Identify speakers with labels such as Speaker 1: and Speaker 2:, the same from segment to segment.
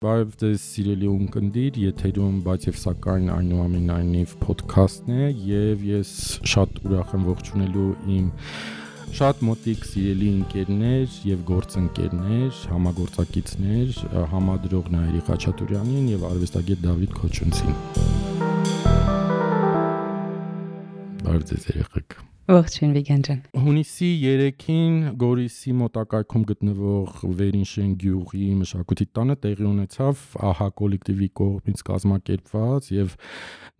Speaker 1: Բարև ձեզ սիրելի ունկնդիր, եթերում բայց եւ սակայն այնուամենայնիվ ոդքասթն է եւ ես շատ ուրախ եմ ողջունելու իմ շատ մոտիկ սիրելի ընկերներ եւ գործընկերներ, համագործակիցներ, համադրող Նայիրի Խաչատուրյանին եւ արվեստագետ Դավիթ Քոչունցին։ Բարև ձեզ երեխեք։
Speaker 2: Ողջույն Վիգեն ջան։
Speaker 1: Հունիսի 3-ին Գորիսի մոտակայքում գտնվող Վերինշեն գյուղի մշակույթի տանը տեղի ունեցավ ԱՀԱ կոլեկտիվի կողմից կազմակերպված եւ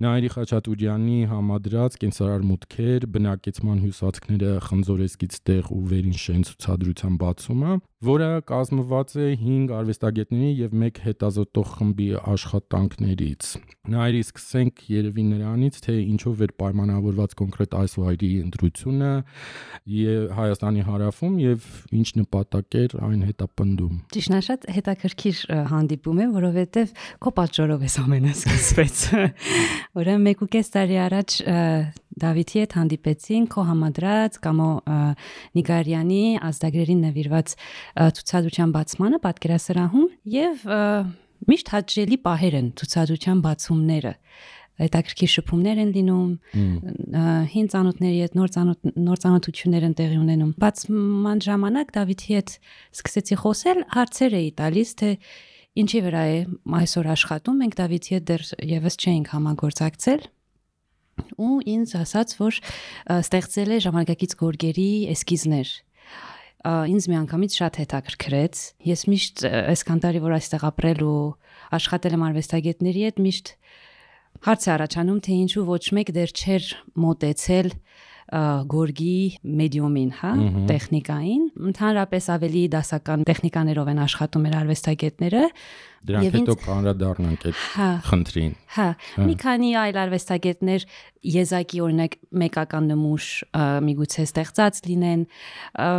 Speaker 1: Նայիրի Խաչատուրյանի համադրած կենսարար մուտքեր, բնակեցման հյուսվածքները խնձորեսկից տեղ ու Վերինշեն ցուցադրության բացումը, որը կազմված է 5 արվեստագետների եւ 1 հետազոտող խմբի աշխատանքներից։ Նայիրի սկսենք երևի նրանից, թե ինչով էր պայմանավորված կոնկրետ այս վայրի ընտրությունը Հայաստանի հարավում եւ ինչ նպատակ էր այն հետապնդում։
Speaker 2: Ճիշտ է, շատ հետաքրքիր հանդիպում է, որովհետեւ քո պատճառով էս ամենը սկսվեց։ Ուրեմն 1.5 տարի առաջ Դավիթի հետ հանդիպեցին քո համադրած Կամո Նիգարյանի ազդագրերին նվիրված ցուցադրության բացմանը պատկերասրահում եւ միշտ հաճելի պահեր են ցուցադրության բացումները։ Հետաքրքիր շփումներ են լինում, հին ծանոթների հետ նոր ծանոթություններ են տեղի ունենում։ Բացման ժամանակ Դավիթի հետ սկսեցի խոսել, հարցեր էի տալիս, թե ինչի վրա է այսօր աշխատում, մենք Դավիթի հետ դեռ եւս չէինք համագործակցել։ Ու ինձ ասաց, որ ստեղծել է ժամանակակից գորգերի էսքիզներ։ Ինձ միանգամից շատ հետաքրքրեց։ Ես միշտ այսքան տարի որ այստեղ ապրել ու աշխատել եմ արվեստագետների հետ, միշտ հարց է առաջանում, թե ինչու ոչ մեկ դեռ չէր մոտեցել գորգի մեդիումին, հա, տեխնիկային։ Ընդհանրապես ավելի դասական տեխնիկաներով են աշխատում մեր արվեստագետները։
Speaker 1: Դրանք հետո կանրադառնանք այդ խնդրին։
Speaker 2: Հա, մի քանի այլ արվեստագետներ եզակի օրինակ մեկական նմուշ միգուցե ստեղծած լինեն,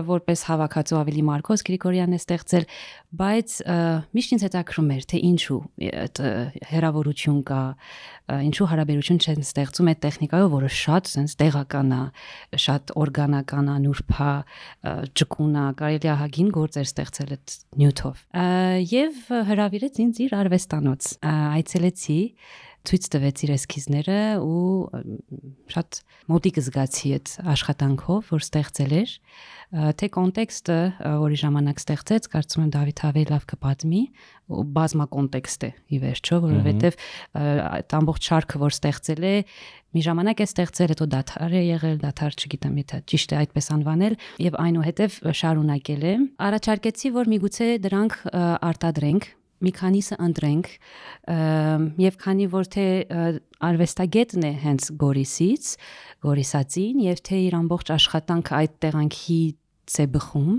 Speaker 2: որպես հավաքածու ավելի Մարկոս Գրիգորյանն է ստեղծել, բայց միշտ ինձ հետաքրում էր, թե ինչու հերավորություն կա, ինչու հարաբերություն չեն ստեղծում այդ տեխնիկայով, որը շատ sense տեղական է, շատ օրգանական է, նուրբ է, ճկուն է, կարելի է հագին գործեր ստեղծել այդ նյութով։ Եվ հրավիրեց ինձ իր արվեստանոց։ Այցելեցի, ցույց տվեց իր էսքիզները ու շատ մոտիկ զգացի այդ աշխատանքով, որ ստեղծել էր, թե կոնտեքստը, որի ժամանակ ստեղծեց, կարծում եմ Դավիթ ավելի լավ կպատմի, բազմակոնտեքստ է ի վերջո, որովհետև այդ ամբողջ շարքը, որ ստեղծել է, մի ժամանակ է ստեղծել, հետո դադար է եղել, դադար չգիտեմ, եթե ճիշտ է այդպես անվանել, եւ այնուհետև շարունակել է։ Առաջարկեցի, որ միգուցե դրանք արտադրենք, մի քանիսը ընտրենք եւ քանի որ թե արվեստագետն է հենց Գորիսից, Գորիսացին եւ թե իր ամբողջ աշխատանքը այդ տեղանքից է բխում,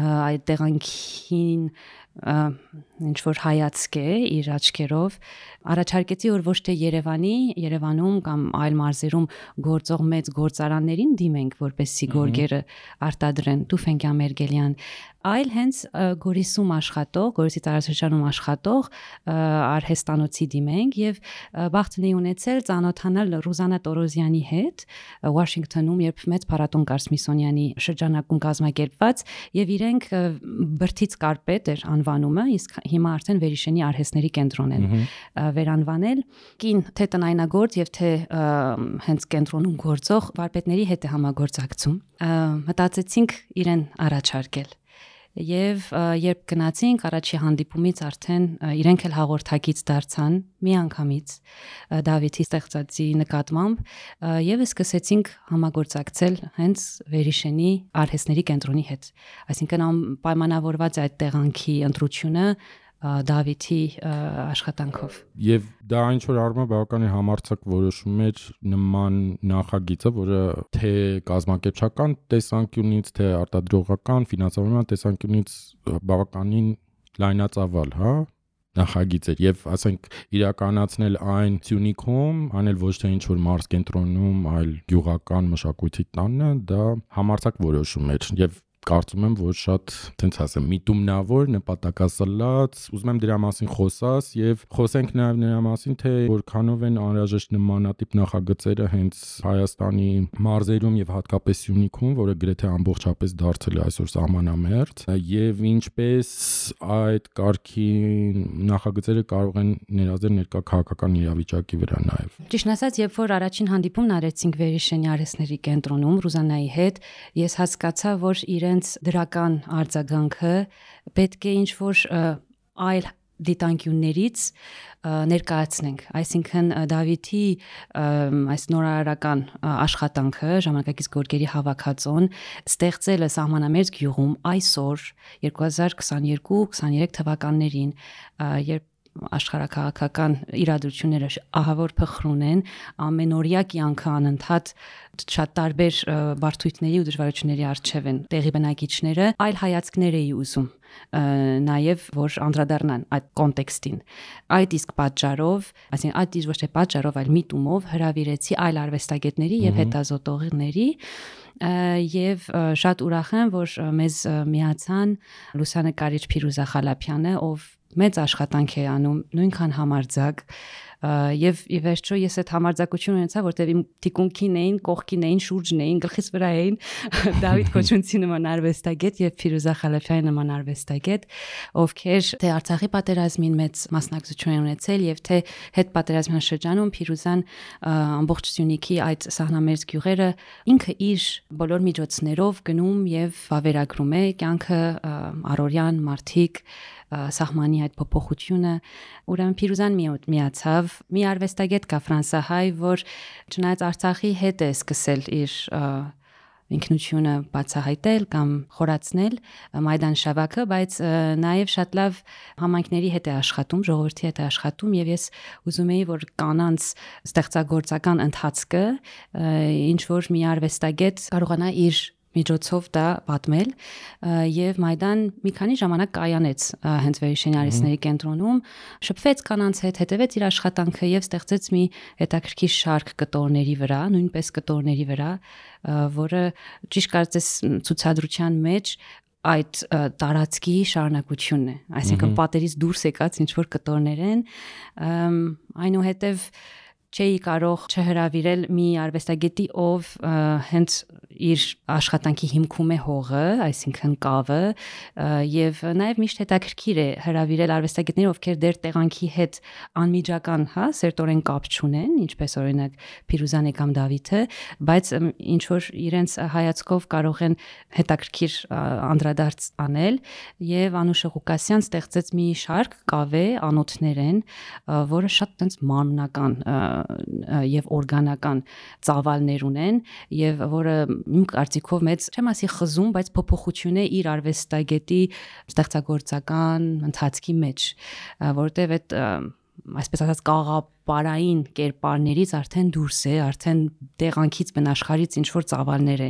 Speaker 2: այդ տեղանքին ինչ որ հայացք է իր աչքերով, առաջարկեցի որ ոչ թե Երևանում կամ այլ մարզերում գործող մեծ գործարաններին դիմենք, որպեսզի գորգերը արտադրեն, Տուֆեն Գամերգելյան, այլ հենց Գորիսում աշխատող, Գորիսի տարածաշրջանում աշխատող արհեստանոցի դիմենք եւ բախտ լինի ունեցել ծանոթանալ Ռուզանա Տորոզյանի հետ Վաշինգտոնում, երբ մեծ փառատոն կար Սմիթսոնյանի շրջանակում կազմակերպված եւ իրենք բրդից կարպետ էր անվանումը, իսկ հիմա արդեն Վերիշենի արհեստների կենտրոն են վերանվանել։ Կին թե տնայնագործ եւ թե հենց կենտրոնում գործող վարպետների հետ է համագործակցում։ Մտածեցինք իրեն առաջարկել։ Եվ երբ գնացինք առաջի հանդիպումից արդեն իրենք էլ հաղորդակից դարձան միանգամից Դավիթի ստեղծածի նկատմամբ եւ սկսեցինք համագործակցել հենց Վերիշենի արհեստների կենտրոնի հետ, այսինքն պայմանավորված է այդ տեղանքի ընտրությունը Դավիթի աշխատանքով։
Speaker 1: Եվ դա ինչ որ առումով բավականին համարձակ որոշում էր նման նախագիծը, որը թե կազմակերպչական տեսանկյունից, թե արտադրողական, ֆինանսավորման տեսանկյունից բավականին լայնածավալ, հա, նախագիծ էր եւ ասենք իրականացնել այն Սյունիքում, անել ոչ թե ինչ որ մարզ կենտրոնում, այլ գյուղական մշակույթի տանը, դա համարձակ որոշում էր եւ կարծում եմ, որ շատ, տենց ասեմ, միտումնավոր, նպատակասլաց, ուզում եմ դրա մասին խոսած եւ խոսենք նաեւ նրա մասին, թե որքանով են անհրաժեշտ նմանատիպ նախագծերը հենց Հայաստանի մարզերում եւ հատկապես Սյունիքում, որը գրեթե ամբողջապես դարձել է այսօր սահմանամերձ, եւ ինչպես այդ կարգի նախագծերը կարող են ներազդել ներկա քաղաքական իրավիճակի վրա նաեւ։
Speaker 2: Ճիշտ ասած, երբ որ առաջին հանդիպումն արեցինք Վերիշենի արհեստների կենտրոնում Ռուզանայի հետ, ես հասկացա, որ իրենց դրական արձագանքը պետք է ինչ-որ այլ դիտանկյուններից ներկայացնենք, այսինքն Դավիթի այս նորարարական աշխատանքը, ժամանակակից գորգերի հավաքածոն ստեղծելը սահմանամերձ գյուղում այսօր 2022-23 թվականներին, երբ աշխարհակաղակական իրադրությունները ահավոր փխրուն են, ամենօրյա կյանքը անընդհատ շատ տարբեր բարդությունների ու դժվարությունների առջև են տեղի բնակիչները, այլ հայացքներ էի ուզում նաև որ անդրադառնան այդ կոնտեքստին։ Այդ իսկ պատճառով, այսինքն այդ ոչ թե պատճառով, այլ միտումով հրավիրեցի այլ արվեստագետների եւ հետազոտողների եւ շատ ուրախ եմ, որ մեզ միացան լուսանկարիչ Փիրուզա Խալափյանը, ով մեծ աշխատանք է անում, նույնքան համարձակ եւ ի վերջո ես այդ համարձակությունը ունեցա, որտեւ իմ թիկունքին էին, կողքին էին, շուրջն էին, գլխիս վրա էին Դավիթ Քոչունցի նման արվեստագետ եւ Փիրուզա Խալափյանի նման արվեստագետ, ովքեր թե Արցախի պատերազմին մեծ մասնակցություն են ունեցել եւ թե հետ պատերազմյան շրջանում Փիրուզան ամբողջ Սյունիքի այդ սահմանամերձ գյուղերը ինքը իր բոլոր միջոցներով գնում եւ վավերագրում է կյանքը առօրյան մարդիկ սահմանի այդ փոփոխությունը, ուրեմն Փիրուզան միացավ մի արվեստագետ կա ֆրանսահայ, որ չնայած Արցախի հետ է սկսել իր ինքնությունը բացահայտել կամ խորացնել Մայդան Շավակը, բայց նաև շատ լավ համայնքների հետ է աշխատում, ժողովրդի հետ է աշխատում եւ ես ուզում եի, որ կանանց ստեղծագործական ընթացքը ինչ որ մի արվեստագետ կարողանա իր միջոցով դա պատմել եւ Մայդան մի քանի ժամանակ կայանեց հենց Վերիշենի արհեստների կենտրոնում, շփվեց կանանց հետ, հետևեց իր աշխատանքը եւ ստեղծեց մի հետաքրքիր շարք կտորների վրա, նույնպես կտորների վրա, որը ճիշտ կարծես ցուցադրության մեջ այդ տարածքի շարունակությունն է, այսինքն պատերից դուրս եկած ինչ որ կտորներ են, այնուհետև չէի կարող չհրավիրել մի արվեստագետի, ով հենց իր աշխատանքի հիմքում է հողը, այսինքն կավը, եւ նաեւ միշտ հետաքրքիր է հրավիրել արվեստագետներ, ովքեր դեր տեղանքի հետ անմիջական, սերտորեն կապ չունեն, ինչպես օրինակ Փիրուզանը կամ Դավիթը, բայց ինչ որ իրենց հայացքով կարող են հետաքրքիր անդրադարձ անել, եւ Անուշը Ղուկասյան ստեղծեց մի շարք կավե անոթներ են, որը շատ տենց մանրական եւ օրգանական ծավալներ ունեն եւ որը իմ կարծիքով մեծ չեմ ասի խզում, բայց փոփոխություն է իր արվեստագետի ստեղծագործական ընթացքի մեջ, որտեւ այդ այսպես ասած կաղապարային կերպարներից արդեն դուրս է, արդեն տեղանքից բնաշխարից ինչ որ ծավալներ է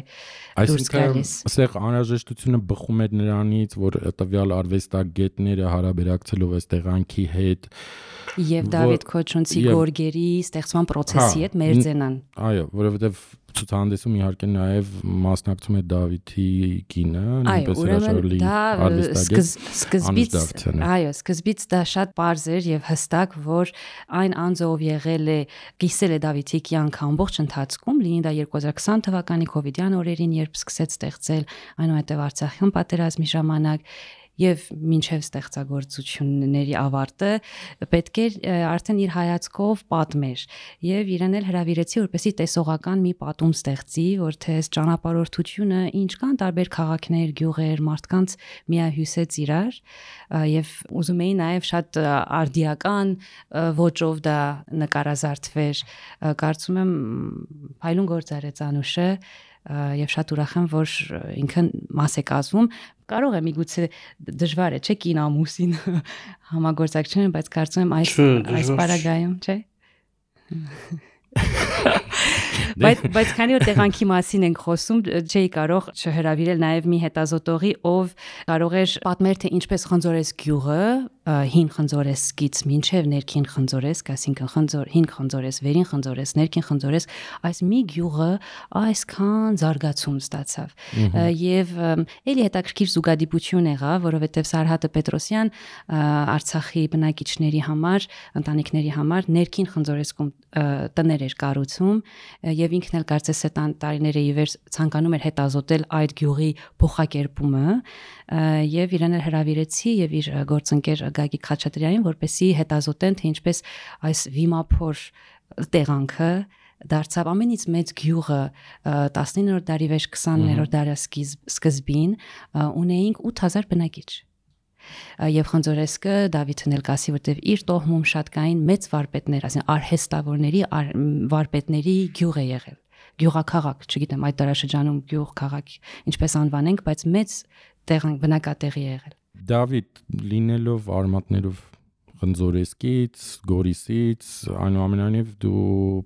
Speaker 2: դուրս գալիս։
Speaker 1: Այստեղ անհրաժեշտությունը բխում էր նրանից, որ տվյալ արվեստագետները հարաբերակցելով այս տեղանքի հետ
Speaker 2: եւ Դավիթ Քոչունցի գորգերի ստեղծման process-ի հետ մերձենան։
Speaker 1: Այո, որովհետեւ ցուցահանդեսում իհարկե նաև մասնակցում է Դավիթի կինը, նույնպես հրաշալի արվեստագետ։
Speaker 2: Այո, սկզբից դա շատ պարզ էր եւ հստակ, որ այն անձը, ով եղել է, կիսել է Դավիթի կյանքը ամբողջ ընթացքում, լինի դա 2020 թվականի կոവിഡ്յան օրերին, երբ սկսեց ստեղծել, այնուհետև Արցախյան պատերազմի ժամանակ եւ մինչեւ ստեղծագործությունների ավարտը պետք է արդեն իր հայացքով պատմեր եւ իրեն էլ հրավիրեցի որպեսզի տեսողական մի պատում ստեղծի, որ թե այս ճանապարհորդությունը ինչ կան տարբեր քաղաքներ, գյուղեր, մարդկանց միահյուսեց իրար եւ ուզում էի նաեւ շատ արդիական ոճով դա նկարազարդվեր, կարծում եմ փայլուն գործ արեց Անուշը եւ շատ ուրախ եմ, որ ինքն մաս է կազմում, կարող է միգուցե դժվար է, չէ՞ կին ամուսին համագործակցությունը, բայց կարծում եմ այս պարագայում, չէ՞։ Բայց քանի որ տեղանքի մասին ենք խոսում, չէի կարող չհրավիրել նաև մի հետազոտողի, ով կարող էր պատմել թե ինչպես խնձորես գյուղը հին խնձորեսկից մինչև ներքին խնձորեսկ, այսինքն հին խնձորես, վերին խնձորես, ներքին խնձորես, այս մի գյուղը այսքան զարգացում ստացավ։ Եվ էլի հետաքրքիր զուգադիպություն եղավ, որովհետև Սարհատը Պետրոսյան Արցախի բնակիչների համար, ընտանիքների համար ներքին խնձորեսկում տներ էր կառուցում եւ ինքն էլ կարծես է տարիների ի վեր ցանկանում էր հետազոտել այդ գյուղի փոխակերպումը եւ իրեն էլ հրավիրեցի եւ իր գործընկեր Գագիկ Խաչատրյանին, որպեսզի հետազոտեն թե ինչպես այս վիմափոր տեղանքը դարձավ ամենից մեծ գյուղը 19-րդ դարի վեր 20-րդ դարի սկզբին ունեինք 8000 բնակիչ։ Եվ խնձորեսկը Դավիթն էլ կասի, որտեվ իր տոհմում շատ կային մեծ վարպետներ, ասեն արհեստավորների վարպետների գյուղ է եղել։ Գյուղաքաղաք, չգիտեմ այդ դարաշրջանում գյուղ քաղաք ինչպես անվանենք, բայց մեծ բնակատեղի է եղել։
Speaker 1: Դավիթ լինելով արմատներով Խնձորեսկից, Գորիսից, այնուամենայնիվ դու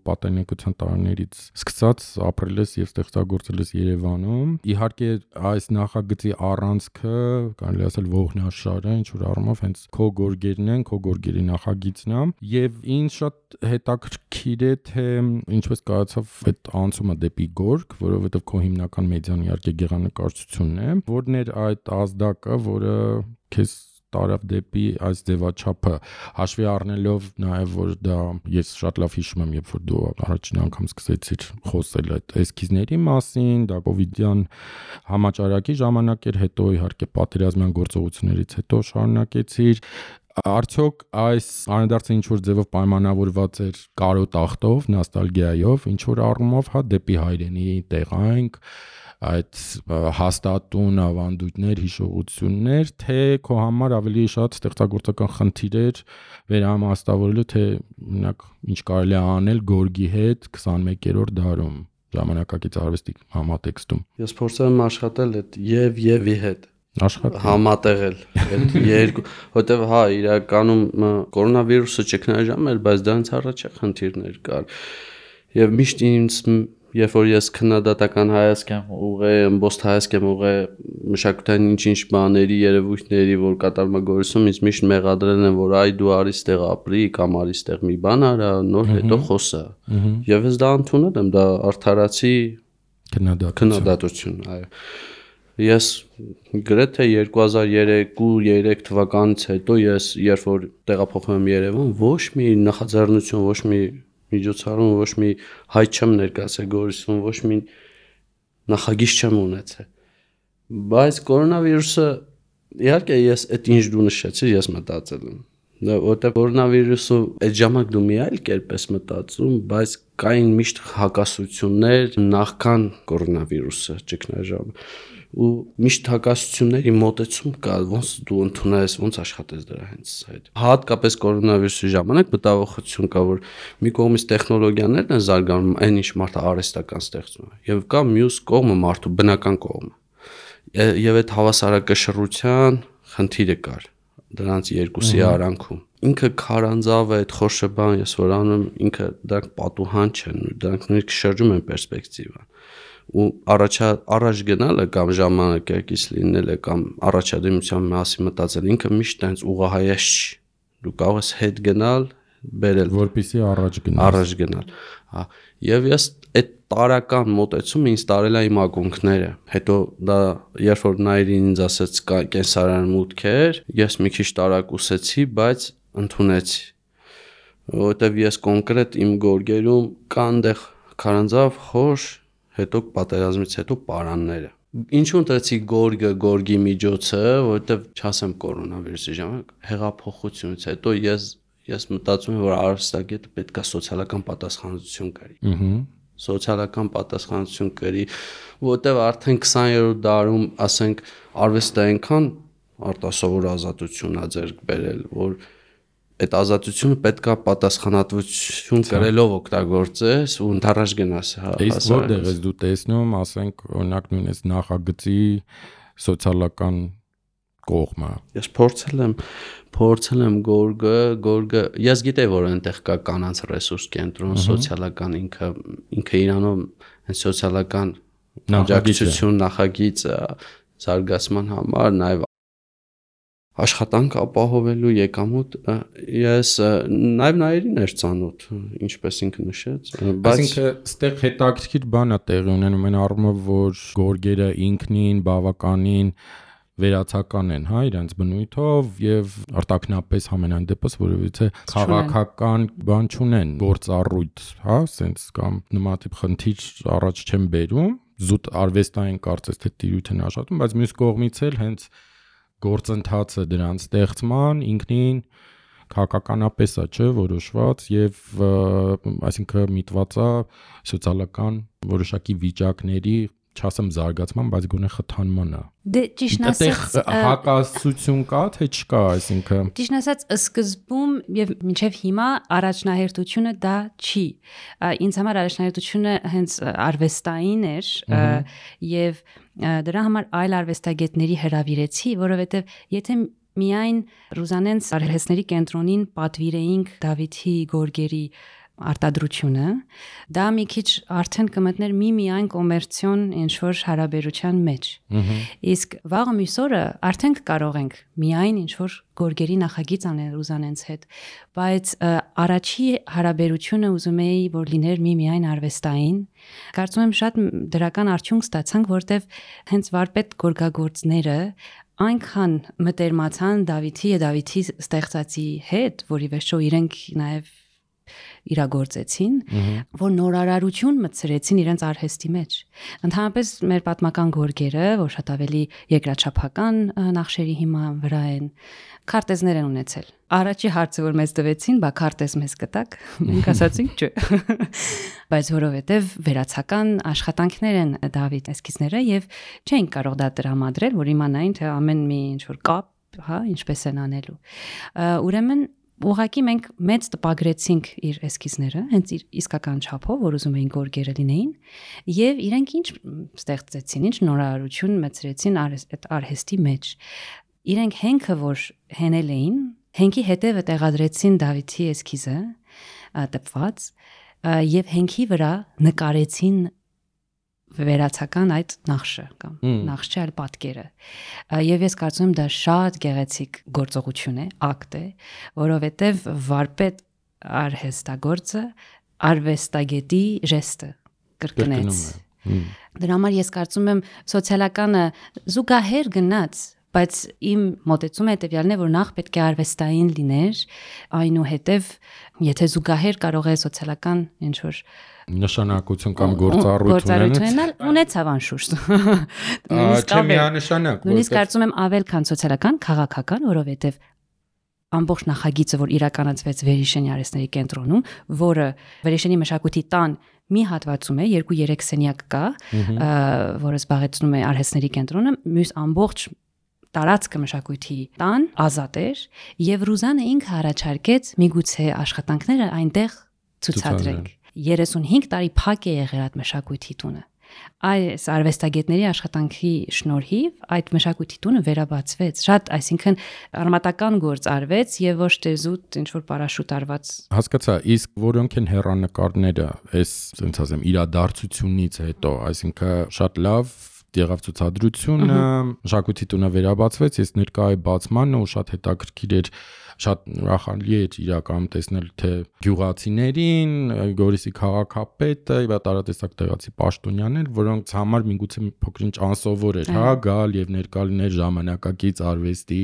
Speaker 1: պատանեկության տարիներից սկսած ապրել ես եւ ստեղծագործել ես Երևանում։ Իհարկե այս նախագծի առանցքը, կարելի ասել ողնաշարը, ինչ որ առումով հենց քո գորգերն են, քո գորգերի նախագիծն է եւ ինձ շատ հետաքրքիր է թե ինչպես կայացավ այդ անցումը դեպի գորգ, որովհետեւ քո հիմնական մեդիան իհարկե գեղանկարչությունն է, որն էր այդ ազդակը, որը քեզ տարավ դեպի այս ձևաչափը, հաշվի առնելով նաև որ դա ես շատ լավ հիշում եմ, երբ որ դու առաջին անգամ սկսեցիր խոսել այդ էսքիզների մասին, դա կովիդյան համաճարակի ժամանակ էր, հետո իհարկե պատերազմյան գործողություններից հետո շարունակեցիր։ Արդյոք այս անհետարցը ինչ որ ձևով պայմանավորված էր կարոտ ախտով, նոստալգիայով, ինչ որ առումով, հա, դեպի հայրենի տեղանք, այդ հաստատուն ավանդույթներ, հիշողություններ, թե քո համար ավելի շատ ստեղծագործական խնդիր էր վերահամաստավորելու, թե օրինակ ինչ կարելի է անել գորգի հետ 21-րդ դարում ժամանակակից արվեստի համատեքստում։
Speaker 3: Ես փորձել եմ աշխատել այդ եւ-ի հետ համատեղել այդ երկու, որտեվ հա իրականում կորոնավիրուսը ճգնաժամ էր, բայց դրանից առաջ խնդիրներ կար։ Եւ միշտ ինձ երբ որ ես քննադատական հայացք եմ ուղղել, ըմբոստ հայացք եմ ուղղել մշակութային ինչ-ինչ բաների, երևույթների, որ կատարվում է Գորիսում, ինձ միշտ մեղադրել են, որ այ դու արի ստեղ ապրի, կամ արի ստեղ մի բան արա, նոր հետո խոսա։ Եվ ես դա ընդունել եմ, դա արդարացի քննադատություն, այո։ Ես գրեթե 2002-3 թվականից հետո ես երբ որ տեղափոխվում եմ Երևան, ոչ մի նախաձեռնություն, ոչ մի միջոցառում, ոչ մի հայտ չեմ ներկայացել Գորիսում, ոչ մի նախագիծ չեմ ունեցել։ Բայց կորոնավիրուսը իհարկե ես այդ ինչ դու նշեցիր, ես մտածել եմ, որտեղ կորոնավիրուսը այդ ժամանակ դու մի այլ կերպ ես մտածում, բայց կային միշտ հակասություններ նախքան կորոնավիրուսը ճգնաժամը ու միշտ հակասությունների մոտեցում կա, ոնց դու ընդունես, ոնց աշխատես դրա հենց այդ։ Հատկապես կորոնավիրուսի ժամանակ մտավախություն կա, որ մի կողմից տեխնոլոգիաներն են զարգանում, այն ինչ մարդը արհեստական ստեղծում է, եւ կա մյուս կողմը մարդու բնական կողմը։ Եվ այդ հավասարակշռության խնդիրը կար դրանց երկուսի արանքում։ Ինքը քարանձավ է, այդ խորշը բան ես որ անում, ինքը դրանք պատուհան չեն, դրանք նույնիսկ շրջում են պերսպեկտիվան։ Ու առաջ գնալը կամ ժամանակակից լինելը կամ առաջադիմության մասին մտածել ինքը միշտ այնց ուղղահայաց չի։ Դու կարող ես հետ գնալ, բերել, որպեսզի առաջ գնալ։ Հա, եւ ես այդ տարական մոտեցումը ինձ տարել է իմ ակունքները։ Հետո դա երբ որ Նայիրին ինձ ասեց կենսարան մուտքեր, ես մի քիչ տարակուսեցի, բայց ընդունեցի։ Որովհետեւ ես կոնկրետ իմ գորգերում կան դեղ քարանձավ, խոր, հետո պատերազմից հետո պարանները։ Ինչու ընտրեցի գորգի միջոցը, որովհետև չասեմ կորոնավիրուսի ժամանակ հեղափոխությունից հետո ես մտածում եմ, որ արվեստագետը պետք է սոցիալական պատասխանատվություն կրի։ Սոցիալական պատասխանատվություն կրի, որովհետև արդեն 20-րդ դարում, ասենք, արվեստը այնքան արտասովոր ազատություն ա ձեռք բերել, որ այդ ազատությունը պետք է պատասխանատվություն կրելով օգտագործես ու ընդառաջ գնաս։
Speaker 1: Իսկ որտեղ ես դու տեսնում, ասենք, օրինակ նույնպես նախագծի սոցիալական կողմը։
Speaker 3: Ես փորձել եմ գորգը, ես գիտեի, որ այնտեղ կա կանանց ռեսուրս կենտրոն, սոցիալական ինքը իրանով այն սոցիալական աջակցություն նախագիծ զարգացման համար, նաև աշխատանք ապահովելու եկամուտ ես նաև նայերին էր ծանոթ, ինչպես ինքը նշեց,
Speaker 1: բայց ինքը ստեղ հետաքրքիր բան է տեղի ունենում այն առումով, որ գորգերը ինքնին բավականին վերացական են, հա, իրենց բնույթով եւ արտակնապես համենայն դեպս որովհետեւ քաղաքական բան չունեն, գործառույթ, հա, sense կամ նմանատիպ խնդիր առաջ չեն բերում, զուտ արվեստային կարծես թե տիրույթ են աշխատում, բայց մյուս կողմից էլ հենց գործընթացը դրանց ստեղծման ինքնին քաղաքականապես է, չէ, որոշված եւ այսինքն միտված է սոցիալական որոշակի վիճակների չասեմ զարգացման, բայց գոնե խթանման է։
Speaker 2: Դե ճիշտ ասած,
Speaker 1: հակասություն կա, թե չկա, այսինքն։
Speaker 2: Ճիշտ ասած, սկզբում եւ մինչեւ հիմա առաջնահերթությունը դա չի։ Ինձ համար առաջնահերթությունը հենց արվեստային էր եւ դրա համար այլ արվեստագետների հրավիրեցի, որովհետեւ եթե միայն Ռուզանենց արհեստների կենտրոնին պատվիրեինք Դավիթի գորգերի արտադրությունը, դա մի քիչ արդեն կմտներ միայն կոմերցիոն ինչ-որ հարաբերության մեջ։ Իսկ վաղը մյուս օրը արդեն կարող ենք միայն ինչ-որ գորգերի նախագիծ անել Ռուզանենց հետ, բայց առաջի հարաբերությունը ուզում էի, որ լիներ միայն արվեստային։ Կարծում եմ շատ դրական արդյունք ստացանք, որտեվ հենց վարպետ գորգագործները այնքան մտերմացան Դավիթի ստեղծածի հետ, որի վերջո իրենք նաև իրագործեցին, որ նորարարություն մտցրեցին իրենց արհեստի մեջ։ Ընդհանրապես մեր պատմական գորգերը, որ շատ ավելի երկրաչափական նախշերի հիման վրա են, քարտեզներ են ունեցել։ Առաջի հարցը, որ մեզ տվեցին, բա քարտեզ մեզ կտակ, մենք ասացինք չէ։ Բայց որովհետև վերացական աշխատանքներ են Դավիթ էսքիզները եւ չէին կարող դա տրամադրել, որ իմանային, թե ամեն մի ինչ որ կապ, հա, ինչպես են անելու։ Ուրեմն ուղղակի մենք մեծ տպագրեցինք իր էսքիզները, հենց իր իսկական չափով, որ ուզում էին գորգերը լինեին, եւ իրենք ինչ ստեղծեցին, ինչ նորարարություն մտցրեցին այդ արհեստի մեջ։ Իրենք հենքը, որ հենել էին, հենքի հետևը տեղադրեցին Դավիթի էսքիզը, տպված, եւ հենքի վրա նկարեցին վերացական այդ նախշը կամ նախշի այլ պատկերը։ Եվ ես կարծում եմ դա շատ գեղեցիկ գործողություն է, ակտ է, որովհետև վարպետ արհեստագործը արվեստագետի ժեստը կրկնեց։ Դրա համար ես կարծում եմ սոցիալականը զուգահեռ գնաց, բայց իմ մոտեցումը հետևյալն է, որ նախ պետք է արվեստային լիներ, այնուհետև եթե զուգահեռ կարող է սոցիալական ինչ-որ
Speaker 1: նշանակություն կամ գործառույթ
Speaker 2: ունեցավ անշուշտ։
Speaker 1: Չէ միանշանակ։
Speaker 2: Նույնիսկ կարծում եմ ավել քան սոցիալական, քաղաքական, որովհետև ամբողջ նախագիծը, որ իրականացվեց Վերիշենի արհեստների կենտրոնում, որը Վերիշենի մշակույթի տան մի հատվածում է, 2-3 սենյակ կա, որը զբաղեցնում է արհեստների կենտրոնը, մյուս ամբողջ տարածքը մշակույթի տան ազատ էր, եւ Ռուզանը ինքը առաջարկեց միգուցե աշխատանքները այնտեղ ցուցադրենք։ 35 տարի փակ է եղել այդ մշակույթի տունը։ Այս արվեստագետների աշխատանքի շնորհիվ այդ մշակույթի տունը վերաբացվեց։ Շատ, այսինքն արմատական գործ արվեց եւ ոչ թե զուտ ինչ որ պարաշուտ արված։
Speaker 1: Հասկացա, իսկ որոնք են հեռանկարները, այս ասենց ասեմ իրադարձությունից հետո, այսինքն շատ լավ եղավ ցուցադրությունը, մշակույթի տունը վերաբացվեց, ես ներկայի բացմանն ու շատ հետաքրքիր էր, շատ ուրախալի էր իրականում տեսնել թե գյուղացիներին, Գորիսի քաղաքապետը, եւ տարատեսակ տեղացի պաշտոնյաներ, որոնց համար միգուցե փոքրինչ անսովոր էր, հա, գալ եւ ներկա լինել ժամանակակից արվեստի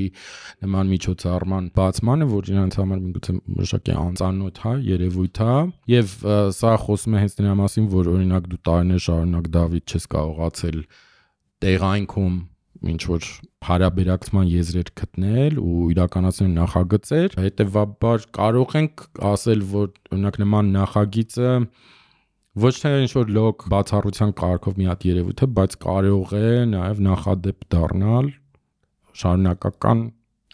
Speaker 1: նման միջոցառման բացմանը, որ իրենց համար միգուցե մշակի անծանոթ, հա, երևույթ է, եւ սա խոսում է հենց դրա մասին, որ օրինակ դու տարիներ շարունակ Դավիթ չես կարողացել տեղայնքում ինչ որ հարաբերակցման եզրեր գտնել ու իրականացնել նախագծեր, հետեւաբար կարող ենք ասել, որ օրինակ նման նախագիծը ոչ թե ինչ որ լոկ բացառության կարգով մի հատ երևույթ է, բայց կարող է նաև նախադեպ դառնալ շարունակական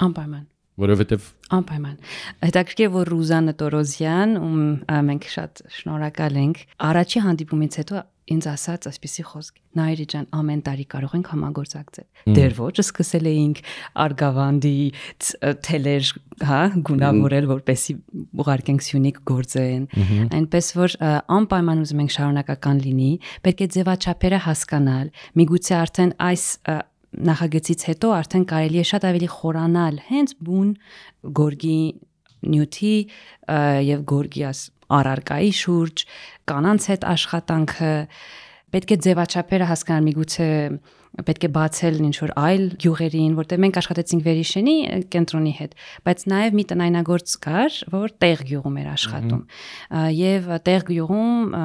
Speaker 2: անպայման,
Speaker 1: որովհետեւ
Speaker 2: անպայման։ Հետաքրքիր որ Ռուզանա Տորոզյան, ում մենք շատ շնորհակալ ենք, առաջի հանդիպումից հետո ինձ ասաց այսպեսի խոսք. Նայիրի ջան, ամեն տարի կարող ենք համագործակցել։ Դեռ ոչ, սկսել էինք Արգավանդի թելեր, հա, գունավորել, որպեսի ուղարկենք Սյունիք գործեն։ Այնպես որ անպայման ուզում ենք շարունակական լինի, պետք է ձևաչափերը հասկանալ։ Միգուցե արդեն այս նախագծից հետո արդեն կարելի է շատ ավելի խորանալ հենց բուն գորգի նյութի եւ գորգի առարկայի շուրջ, կանանց հետ աշխատանքը, պետք է ձևաչափերը հասկանալ, միգուցե պետք է բացել ինչ-որ այլ գյուղերին, որտեղ մենք աշխատեցինք Վերիշենի կենտրոնի հետ, բայց նաև մի տնայնագործ կար, որ տեղ գյուղում էր աշխատում։ Եվ տեղ գյուղում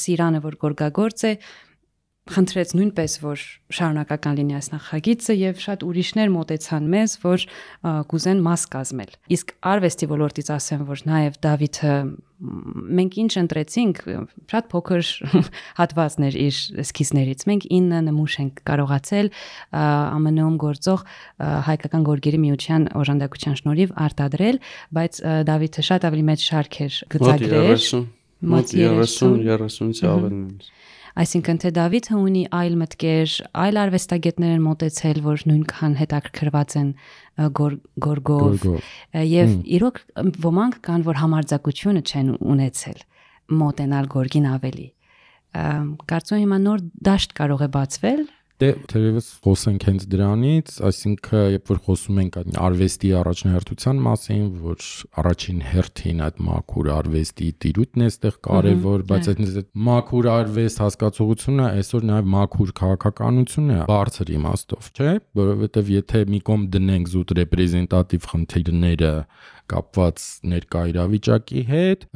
Speaker 2: Սիրանը, որ գորգագործ է, խնդրեց նույնպես, որ շարունակական լինի այս նախագիծը եւ շատ ուրիշներ մոտեցան մեզ, որ կուզեն մաս կազմել։ Իսկ արվեստի ոլորտից ասեմ, որ նաեւ Դավիթը մենք ինչ ընտրեցինք, շատ փոքր հատվածներ իր էսքիզներից։ Մենք 9 նմուշ ենք կարողացել ԱՄՆ-ում գործող հայկական գորգերի միության օժանդակության շնորհիվ արտադրել, բայց Դավիթը շատ ավելի մեծ շարք էր գծագրել։
Speaker 3: Մոտ 30-ից ավել։
Speaker 2: Այսինքն թե Դավիթը ունի այլ մտքեր, այլ արվեստագետներ են մոտեցել, որ նույնքան հետաքրքրված են գորգով, եւ իրոք ոմանք կան, որ համարձակությունը չեն ունեցել մոտենալ գորգին ավելի։ Կարծում եմ հիմա նոր դաշտ կարող է բացվել։
Speaker 1: Դե թերևս խոսենք հենց դրանից, այսինքն երբ որ խոսում ենք արվեստի առաջնահերթության մասին, որ առաջին հերթին այդ մաքուր արվեստի տիրույթն է այդտեղ կարևոր, բայց այդ մաքուր արվեստ հասկացողությունը այսօր նաև մաքուր քաղաքականություն է բարձր իմաստով, չէ՞, որովհետև եթե մի կողմ դնենք զուտ ռեպրեզենտատիվ խնդիրները կապված ներկա իրավիճակի հետ,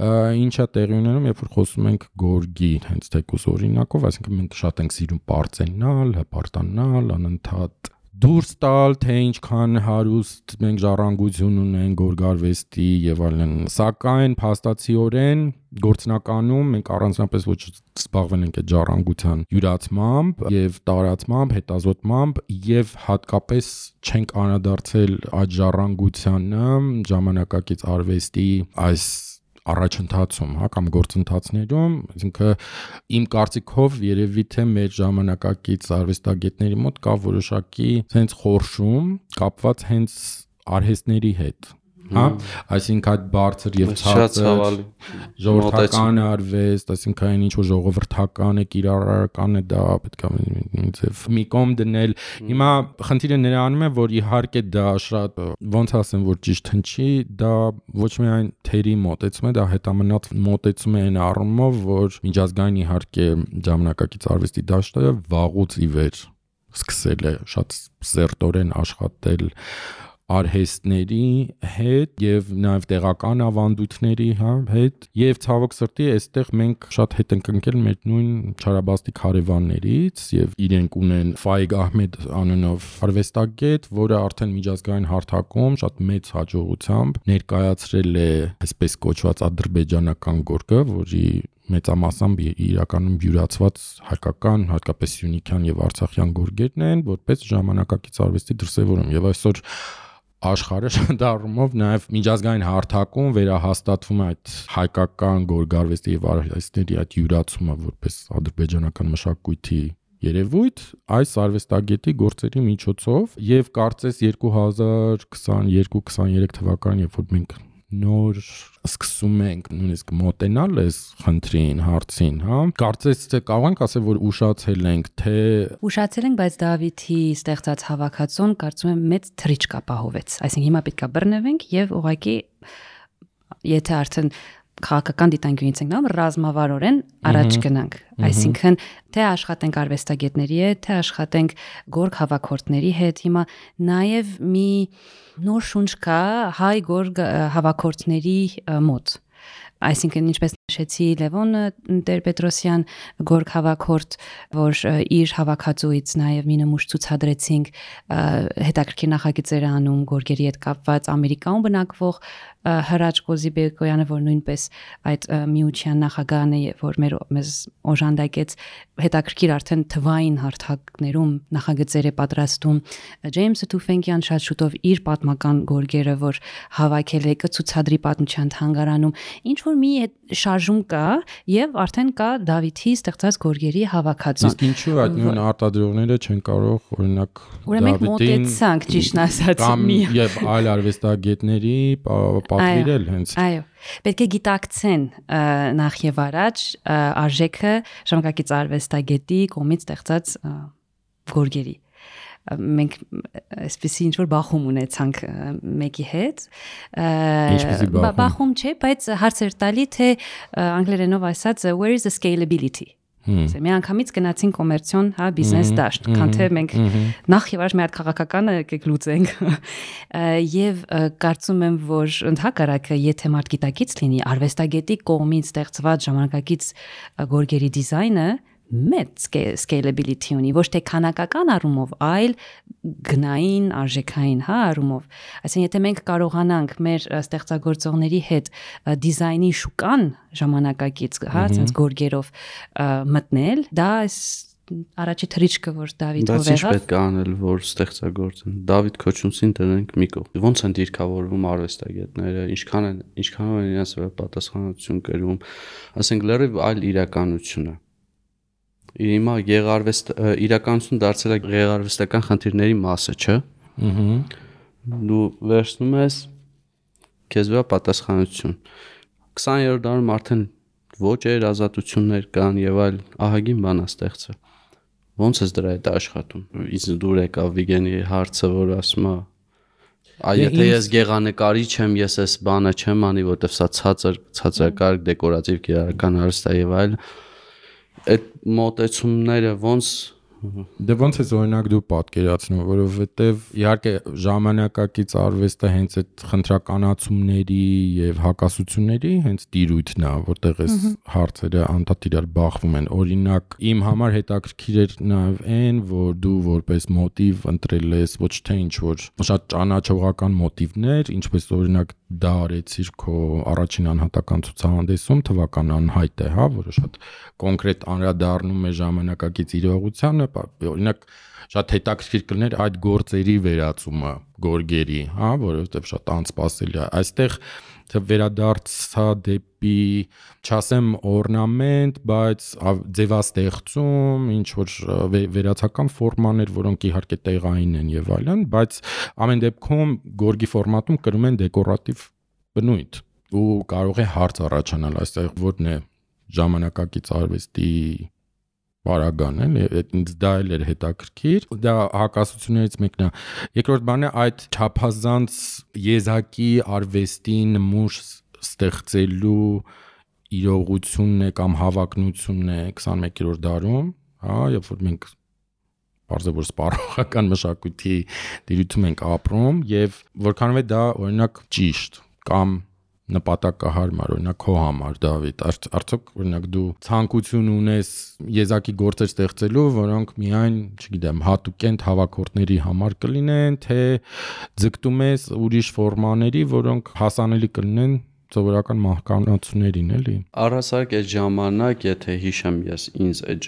Speaker 1: ինչա տեղի ունենում, երբ որ խոսում ենք գորգի հենց թեկուզ օրինակով, այսինքն մենք շատ ենք սիրում պարծենալ, հպարտանալ, անընդհատ դուրս տալ, թե ինչքան հարուստ մենք ժառանգություն ունենք գորգարվեստի եւ այլն, սակայն փաստացիորեն գործնականում մենք առանձնապես ոչ զբաղվել ենք այդ ժառանգության յուրացմամբ եւ տարածմամբ, հետազոտմամբ եւ հատկապես չենք անդրադարձել այդ ժառանգությանը ժամանակակից արվեստի այս առաջընթացում, հա, կամ գործընթացներում, այսինքն իմ կարծիքով երևի թե մեր ժամանակակից արվեստագետների մոտ կա որոշակի հենց խորշում կապված հենց արհեստների հետ, հա, այսինքն այդ բարձր եւ ցածր ժողովրդական արվեստ, այսինքն այն ինչ որ ժողովրդական է, կիրառական է, դա պետք է ինձ մի կողմ դնել։ Հիմա խնդիրը նրանում է, որ իհարկե դա շատ ոնց ասեմ, որ ճիշտ հնչի, դա ոչ միայն թերի մոտեցում է, դա հետամնաց մոտեցում է այն առումով, որ միջազգային իհարկե ժամանակակից արվեստի դաշտը վաղուց ի վեր սկսել է շատ սերտորեն աշխատել արհեստների հետ եւ նաեւ տեղական ավանդույթների հետ եւ ցավոք սրտի այստեղ մենք շատ հետ ենք ընկել մեր նույն Չարաբաստիկ հարևաններից եւ իրենք ունեն Ֆայգ Ահմեդ անունով արվեստագետ, որը արդեն միջազգային հարթակում շատ մեծ հաջողությամբ ներկայացրել է այսպես կոչված ադրբեջանական գորգը, որի մեծամասամբ իրականում յուրացված հայկական, հատկապես սյունիքյան եւ արցախյան գորգերն են, որպես ժամանակակից արվեստի դրսևորում եւ այսօր աշխարհը շատ առումով նաև միջազգային հարթակում վերահաստատվում է այդ հայկական գորգարվեստի եւ արվեստների այդ յուրացումը որպես ադրբեջանական մշակույթի երևույթ այս արվեստագետի գործերի միջոցով եւ կարծես 2022-23 թվականին երբ որ մենք նոր սկսում ենք նույնիսկ մոտենալ այս խնդրին, հարցին, հա, կարծես թե կարող ենք ասել, որ ուշացել ենք,
Speaker 2: բայց Դավիթի ստեղծած հավաքածուն կարծում եմ մեծ թռիչք ապահովեց, այսինքն հիմա պետք է բռնվենք եւ ուղղակի եթե արդեն քաղաքական դիտանկյունից ենք նայում, ռազմավարորեն առաջ գնանք, այսինքն թե աշխատենք արվեստագետների հետ, թե աշխատենք գորգ հավաքորդների հետ, հիմա նաև մի նոր շունչ կա հայ գորգ հավաքորդների մոտ, այսինքն ինչպես նշեցի Լևոն Տեր-Պետրոսյան գորգ հավաքորդ, որ իր հավաքածուից նաև մի նմուշ ցուցադրեցինք, հետաքրքիր նախագծեր անում գորգերի հետ կապված Ամերիկայում բնակվող Հրաչ Կոզիբեկոյանը, որ նույնպես այդ միության նախագահն է, որ մեզ օժանդակեց հետաքրքիր արդեն թվային հարթակներում նախագծեր է պատրաստում Ջեյմսը Թուֆենկյան շատ շուտով իր պատմական գորգերը, որ հավաքել է կցուցադրի պատմության թանգարանում, ինչ որ մի շարժում կա եւ արդեն կա Դավիթի ստեղծած գորգերի հավաքածուն։
Speaker 1: Իսկ ինչու այդ նույն արտադրողները չեն կարող օրինակ
Speaker 2: Մենք մոտեցանք ճիշտ ասած
Speaker 1: եւ այլ արվեստագետների պատվիրել հենց։
Speaker 2: Այո, պետք է գիտակցեն նախ եւ առաջ արժեքը ժամանակակից արվեստագետի կողմից ստեղծած գորգերի։ մենք այսպեսի ինչ որ բախում ունեցանք մեկի հետ
Speaker 1: Ինչպեսի
Speaker 2: բախում չէ, բայց հարցեր տալի թե անգլերենով ասած where is the scalability Մի անգամից գնացին կոմերցիոն, հա, բիզնես դաշտ, քան թե մենք նախ եւ առաջ մի հատ քաղաքականը եկեք լուծենք։ Եվ կարծում եմ, որ ընդհակառակը, եթե մարդ գիտակից լինի, արվեստագետի կողմից ստեղծված ժամանակակից գորգերի դիզայնը մեծ scalability ունի, ոչ թե քանակական առումով, այլ գնային, արժեքային, հա, առումով։ Այսինքն, եթե մենք կարողանանք մեր ստեղծագործողների հետ դիզայնի շուկան ժամանակակից, հա, այսպես գորգերով մտնել, դա առաջի թրիչքը, որ Դավիթով
Speaker 3: եղավ։ Բայց ինչ պետք է անել, որ ստեղծագործեն։ Դավիթ Քոչունցին դրանք մի կողմ։ Ոնց են դիրքավորվում արվեստագետները, ինչքան են իրենց վրա պատասխանատվություն կրում, ասենք լրիվ այլ իրականություն է։ Հիմա իրականություն դարձել է գեղարվեստական խնդիրների մասը, չէ՞։ Դու վերցնում ես քեզ վրա պատասխանատվություն։ 20-րդ դարում արդեն ոճեր, ազատություններ կան եւ այլ ահագին բան է ստեղծել։ Ոնց է դրա հետ աշխատում։ Իսկ դուր եկավ Վիգենի հարցը, որ ասում է եթե ես գեղանկարիչ եմ, ես այս բանը չեմ անի, որտեվ սա ցածրակարգ դեկորատիվ կիրառական արվեստ է եւ այլ այդ մոտեցումները ոնց
Speaker 1: ոնց է օրինակ դու պատկերացնում, որովհետև իհարկե ժամանակակից արվեստը հենց այդ խնդրականացումների եւ հակասությունների հենց տիրույթն է, որտեղ այս հարցերը անդադար իրար բախվում են։ Օրինակ իմ համար հետաքրքիր էր նաեւ այն, որ դու որպես մոտիվ ընտրել ես ոչ թե ինչ որ շատ ճանաչողական մոտիվներ, ինչպես օրինակ դա արեցիր քո առաջին անհատական ցուցահանդեսում, թվական անհայտ է, հա, որը շատ կոնկրետ անդրադառնում է ժամանակակից իրողությանը, օրինակ շատ հետաքրքիր կլիներ այդ գործերի վերածումը գորգերի, հա, որովհետև շատ անսպասելի է։ Այստեղ վերադարձա դեպի, չասեմ օրնամենտ, բայց ձևաստեղծում, ինչ որ վերացական ֆորմաներ, որոնք իհարկե տեղային են եւ այլն, բայց ամեն դեպքում գորգի ֆորմատում կրում են դեկորատիվ բնույթ ու կարող է հարց առաջանալ այստեղ որն է ժամանակակից արվեստի Բարագան է, ինձ դա էլ էր հետաքրքիր, դա հակասություններից մեկն է։ Երկրորդ բանը այդ չափազանց եզակի արվեստի նմուշ ստեղծելու իրողությունն է կամ հավակնությունն է 21-րդ դարում, հա, երբ որ մենք բարձր սպառողական մշակույթի դիրույթում ենք ապրում եւ որքանով է դա օրինակ ճիշտ կամ նպատակահարմար, օրինակ քո համար Դավիթ, արդյոք օրինակ դու ցանկություն ունես եզակի գործեր ստեղծելու, որոնք միայն, չգիտեմ, հատուկենտ հավաքորդների համար կլինեն, թե ձգտում ես ուրիշ ֆորմաների, որոնք հասանելի կլինեն սովորական մահկանացուներին, էլի։
Speaker 3: Առհասարակ այդ ժամանակ, եթե հիշեմ ես ինձ այդ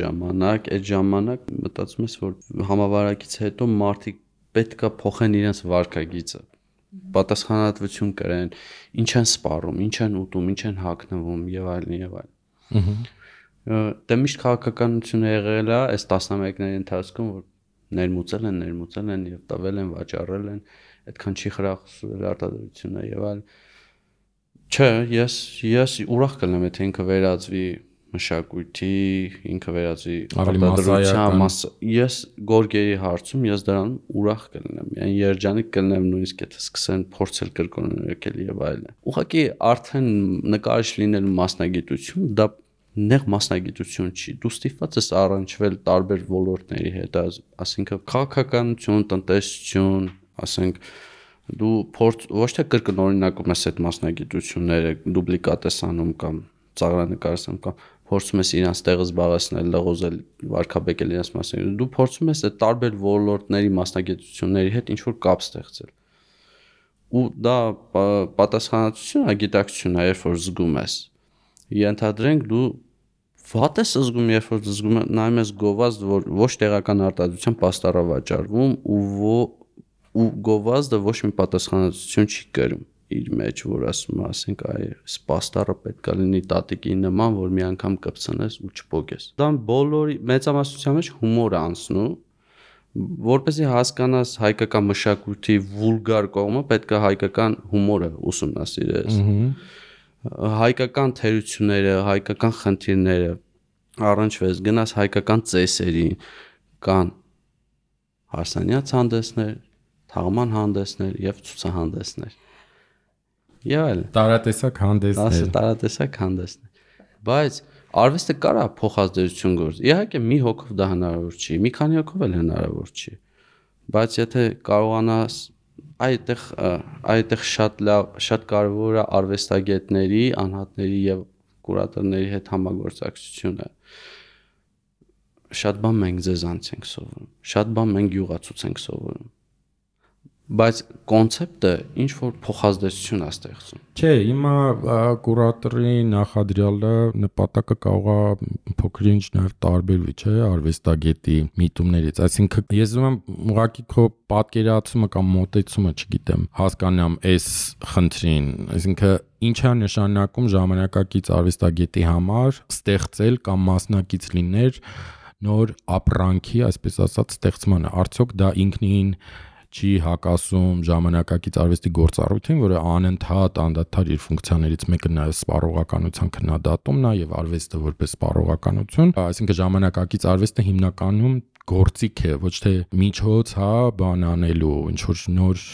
Speaker 3: ժամանակ մտածում ես, որ համավարակից հետո մարդիկ պետքա փոխեն իրենց վարքագիծը պատասխանատվություն կրեն, ինչ են սպառում, ինչ են ուտում, ինչ են հագնվում եւ այլն եւ այլն։ Դե միշտ քաղաքականությունը եղել է այս տասնամյակների ընթացքում, որ ներմուծել են եւ տվել են, վաճառել են, այդքան չի խրախուսվել արտադրությունը եւ այլն։ Չէ, ես ուրախ կլինեմ, եթե ինքը վերածվի մշակույթի, ինքը վերածվի արտադրության մասը։ Ես գորգերի հարցում ես դրան ուրախ կլինեմ։ Այն երջանիկ կլինեմ նույնիսկ եթե սկսեն փորձել կրկնել եւ այլն։ Ուղղակի արդեն նկարիչ լինելու մասնագիտություն դա նեղ մասնագիտություն չի։ Դու ստիպված ես առնչվել տարբեր ոլորտների հետ, ասինքն քաղաքականություն, տնտեսություն, ասենք դու ոչ թե կրկնօրինակում ես այդ մասնագիտությունները, դուպլիկատ ես անում կամ ծաղրանկարում կամ փորձում ես իրենց տեղը զբաղեցնել, լղոզել, վարքաբեկել իրենց մասնագիտությունը, դու փորձում ես այդ տարբեր ոլորտների մասնագիտությունների հետ ինչ-որ կապ ստեղծել։ Ու դա պատասխանատվություն է, գիտակցություն է, երբ որ զգում ես։ Ենթադրենք դու վատ ես զգում, երբ որ զգում նայում ես գովազդ, որ ոչ տեղական արտադրության պաստառ է վաճառվում ու գովազդը ոչ մի պատասխանատվություն չի կրում իր մեջ, որ ասում ասենք այս պաստառը պետք է լինի տատիկի նման, որ մի անգամ կպցնես ու չփոկես։ Դա բոլորի մեծամասնության մեջ հումոր է անցնում, որպեսզի հասկանաս հայկական մշակույթի վուլգար կողմը, պետք է հայկական հումորը ուսումնասիրես։ Հայկական թերությունները, հայկական խնդիրները առնչվես, գնաս հայկական ծեսերին, կան հարսանյաց հանդեսներ, թաղման հանդեսներ եւ ցուցահանդեսներ։ Եվ այլ
Speaker 1: տարատեսակ հանդեսներ։
Speaker 3: Տարատեսակ հանդեսներ։ Բայց արվեստը կարա փոխազդեցություն գործի։ Իհարկե մի հոգով դա հնարավոր չի, մի քանի հոգով էլ հնարավոր չի։ Բայց եթե կարողանաս այդտեղ շատ կարևոր է արվեստագետների, անհատների եւ կուրատորների հետ համագործակցությունը։ Շատ բան մենք ձեզանց ենք սովորում, շատ բան մենք յուղացուց ենք սովորում։ Բայց կոնցեպտը ինչ որ փոխազդեցություն է ստեղծում։
Speaker 1: Չէ, հիմա կուրատորի նախադրյալը նպատակը կարող է փոքր-ինչ նաև տարբերվի, չէ, արվեստագետի միտումներից։ Այսինքն ես ուզում եմ ուղղակի քո պատկերացումը կամ մոտեցումը, չգիտեմ, հասկանամ այս խնդրին, այսինքն ինչ է նշանակում ժամանակակից արվեստագետի համար ստեղծել կամ մասնակից լինել նոր ապրանքի, այսպես ասած, ստեղծմանը։ Արդյոք դա ինքնին չի հակասում ժամանակակից արվեստի գործառույթին, որը անընդհատ անդադար իր ֆունկցիաներից մեկը նաև սպառողականության քննադատումն է եւ արվեստը որպես սպառողականություն, այսինքն ժամանակակից արվեստը հիմնականում գործիք է, ոչ թե միջոց, բան անելու, ինչ որ նոր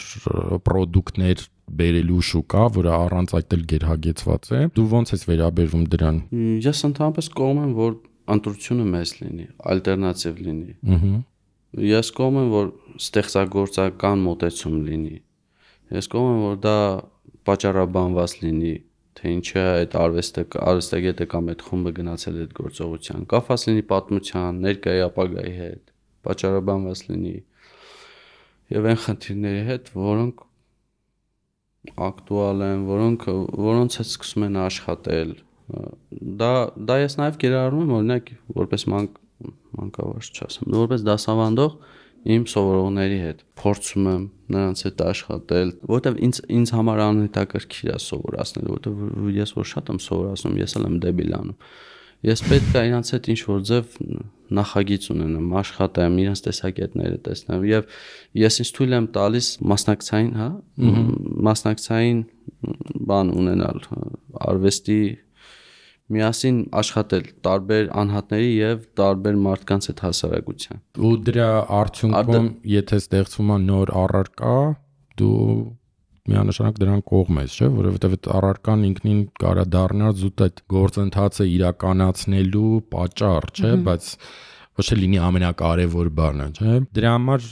Speaker 1: պրոդուկտներ բերելու շուկա, որը առանց այդ էլ գերհագեցված է։ Դու ո՞նց ես վերաբերվում դրան։
Speaker 3: Ես ընդհանրապես կողմ եմ, որ ընտրությունը մեծ լինի, ալտերնատիվ լինի։ Ես կողմ եմ, որ ստեղծագործական մոտեցում լինի։ Ես կողմ եմ, որ դա պատճառաբանված լինի, թե ինչի է այդ արվեստագետը կամ այդ խումբը գնացել այդ գործողության, կապված լինի պատմության, ներկայի ապագայի հետ, պատճառաբանված լինի եւ այն խնդիրների հետ, որոնք ակտուալ են, որոնց հետ սկսում են աշխատել։ Դա ես նաև կիրառում եմ, օրինակ, որպես մանկավարժ չասեմ, որպես դասավանդող իմ սովորողների հետ փորձում եմ նրանց հետ աշխատել, որովհետև ինձ համար անհետաքրքիր է սովորացնել, որովհետև ես որ շատ եմ սովորացնում, ես էլ եմ դեբիլ անում։ Ես պետք է իրանց հետ ինչ-որ ձև նախագիծ ունենամ, աշխատեմ, իրենց տեսակետները տեսնեմ եւ ես ինձ թույլ եմ տալիս մասնակցային բան ունենալ, արվեստի միասին աշխատել տարբեր անհատների եւ տարբեր մարդկանց հետ հասարակության։
Speaker 1: Ու դրա արդյունքում, եթե ստեղծվում է նոր առարկա, դու միանշանակ դրան կողմ ես, չէ՞, որովհետեւ այդ առարկան ինքնին կարա դառնալ զուտ այդ գործընթացը իրականացնելու պատճառ, չէ՞, բայց ոչ թե լինի ամենակարևոր բանը, չէ՞։ Դրա համար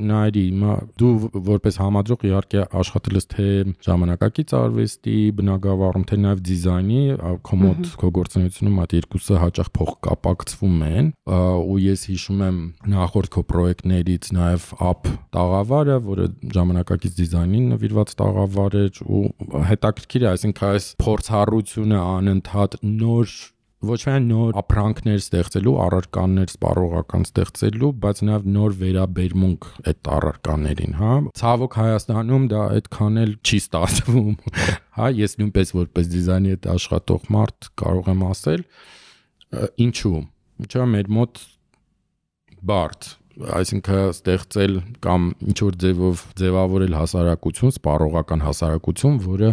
Speaker 1: նայրի, հիմա դու որպես համադրող իհարկե աշխատել ես թե ժամանակակից արվեստի բնագավառում, թե նաև դիզայնի, քո մոտ քո գործունեությունում այդ երկուսը հաճախ փոխկապակցվում են, ու ես հիշում եմ նախորդ քո պրոյեկտներից նաև AP տաղավարը, որը ժամանակակից դիզայնին նվիրված տաղավար էր, ու հետաքրքիր է, այսինքն այս փորձառությունը անընդհատ նոր ոչ միայն նոր ապրանքներ ստեղծելու, առարկաներ սպառողական ստեղծելու, բայց նաև նոր վերաբերմունք այդ առարկաներին, հա։ Ցավոք Հայաստանում դա այդքան էլ չի ստացվում, հա, ես նույնպես որպես դիզայնի հետ աշխատող մարդ կարող եմ ասել, ինչու՞։ Ինչու՞ մեր մոտ բարդ, այսինքն ստեղծել կամ ինչ որ ձևով ձևավորել հասարակություն, սպառողական հասարակություն, որը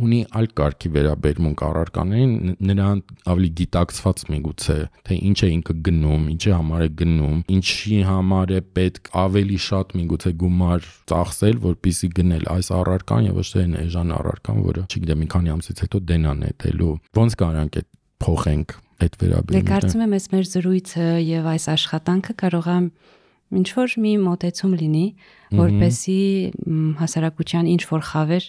Speaker 1: ունի այլ կարգի վերաբերմունք առարկաներին, նրան ավելի գիտակցված միգուցե, թե ինչ է ինքը գնում, ինչի համար է գնում, ինչի համար է պետք ավելի շատ միգուցե գումար ծախսել, որպեսզի գնել այս առարկան եւ ոչ թե այն էժան առարկան, որը, չգիտեմ, մի քանի ամսից հետո դենան նետելու։ Ոնց կարանք այդ փոխենք այդ վերաբերմունքը։
Speaker 2: Դե կարծում եմ, այս մեր զրույցը եւ այս աշխատանքը կարող է ինչ որ մի մոտեցում լինի, որպեսզի հասարակության ինչ որ խավեր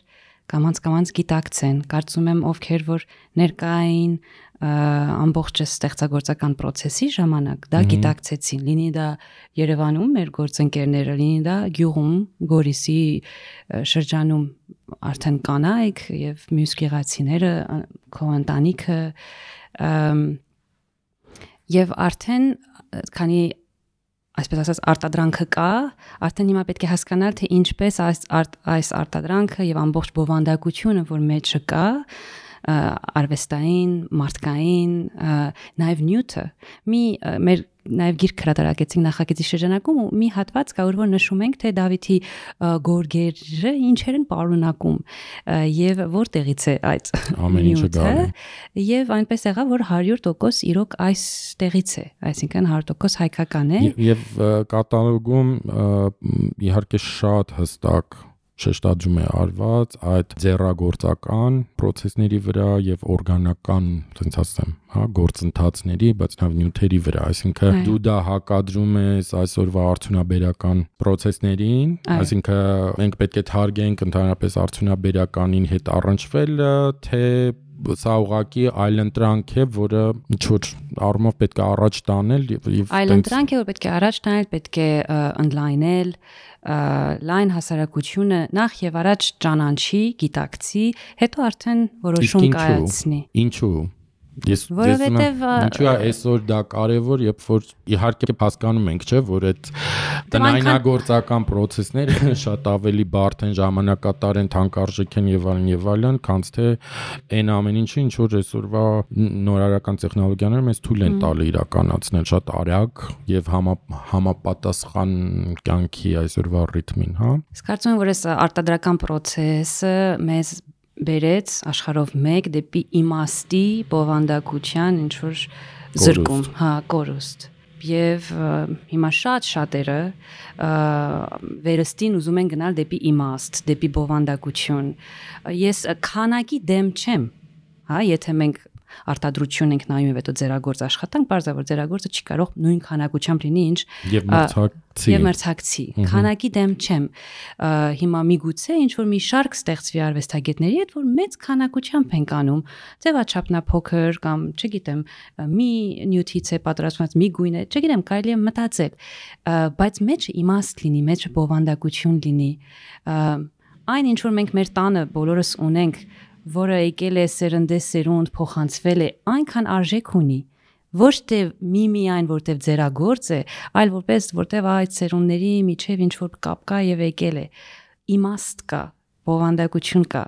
Speaker 2: կամաց գիտակցեն։ Կարծում եմ, ովքեր որ ներկային ամբողջ ստեղծագործական process-ի ժամանակ դա գիտակցեցին, լինի դա Երևանում մեր գործընկերները, լինի դա գյուղում, Գորիսի շրջանում արդեն կանայք եւ մյուս գեղացիները, քո ընտանիքը, եւ արդեն քանի այսպես ասած արտադրանքը կա, արդեն հիմա պետք է հասկանալ, թե ինչպես այս արտադրանքը եւ ամբողջ բովանդակությունը, որ մեջը կա, արվեստային, մարդկային, նաև նյութը։ Մեր նաև գիրք հրատարակեցինք նախագծի շրջանակում ու մի հատված կա, որ նշում ենք, թե Դավիթի գորգերը ինչեր են պարունակում եւ որտեղից է այդ
Speaker 1: ամեն ինչը գալու։
Speaker 2: Եվ այնպես եղավ, որ 100% իրոք այստեղից է, այսինքն 100% հայկական է։
Speaker 1: Եվ կատալոգում իհարկե շատ հստակ շեշտադրում է արված այդ ձեռագործական process-ների վրա եւ օրգանական, ասենք ասեմ, հա, գործընթացների, բայց նաեւ նյութերի վրա, այսինքն դու դա հակադրում ես այսօրվա արդյունաբերական process-ներին, այսինքն մենք պետք է թարգենք ընդհանրապես արդյունաբերականին հետ առնչվելը, թե սա ուղղակի այլընտրանք է, որը ինչ որ առումով պետք է առաջ տանել եւ
Speaker 2: այլընտրանք է, որ պետք է առաջ տանել, պետք է ընդլայնել լայն հասարակությունը նախ եւ առաջ ճանաչի, գիտակցի, հետո արդեն որոշում կայացնի։
Speaker 1: Ինչու՞։ Որովհետև ինչու է այսօր դա կարևոր, երբ որ իհարկե հասկանում ենք, չէ, որ այդ տնայնագործական process-ները շատ ավելի բարդ են, ժամանակատար են, թանկարժեք են եւ այլն, քան թե այն ամեն ինչը, ինչ որ այսօրվա նորարարական տեխնոլոգիաները մեզ թույլ են տալի իրականացնել շատ արագ եւ համապատասխան կյանքի այսօրվա ռիթմին, հա։
Speaker 2: Իսկ կարծում եմ, որ այս արտադրական process-ը մեզ բերեց աշխարհով մեկ դեպի իմաստի բովանդակության ինչ որ զրկում, հա, կորուստ։ Եվ հիմա շատերը վերստին ուզում են գնալ դեպի իմաստ, դեպի բովանդակություն։ Ես քանակի դեմ չեմ, հա, եթե մենք արտադրություն ենք նայում եւ հետո ձեռագործ աշխատանք, բարձր ձեռագործը չի կարող նույն քանակությամբ լինի, ինչ եւ մրցակցի։ Քանակի դեմ չեմ։ Հիմա միգուցե ինչ որ մի շարք ստեղծվի արվեստագետների հետ, որ մեծ քանակությամբ են անում, ձևաչափնա փոքր կամ, չգիտեմ, մի նյութից է պատրաստված, մի գույն է, չգիտեմ, կարելի է մտածել, բայց մեջը իմաստ լինի, մեջը բովանդակություն լինի։ Այն ինչ որ մենք մեր տանը բոլորս ունենք, որը եկել է սերնդեսերունդ փոխանցվել է, այնքան արժեք ունի, ոչ թե միայն որտեվ ձեռագործ է, այլ որտեվ այդ սերունդների միջև ինչ որ կապ կա եւ եկել է, իմաստ կա, բովանդակություն կա,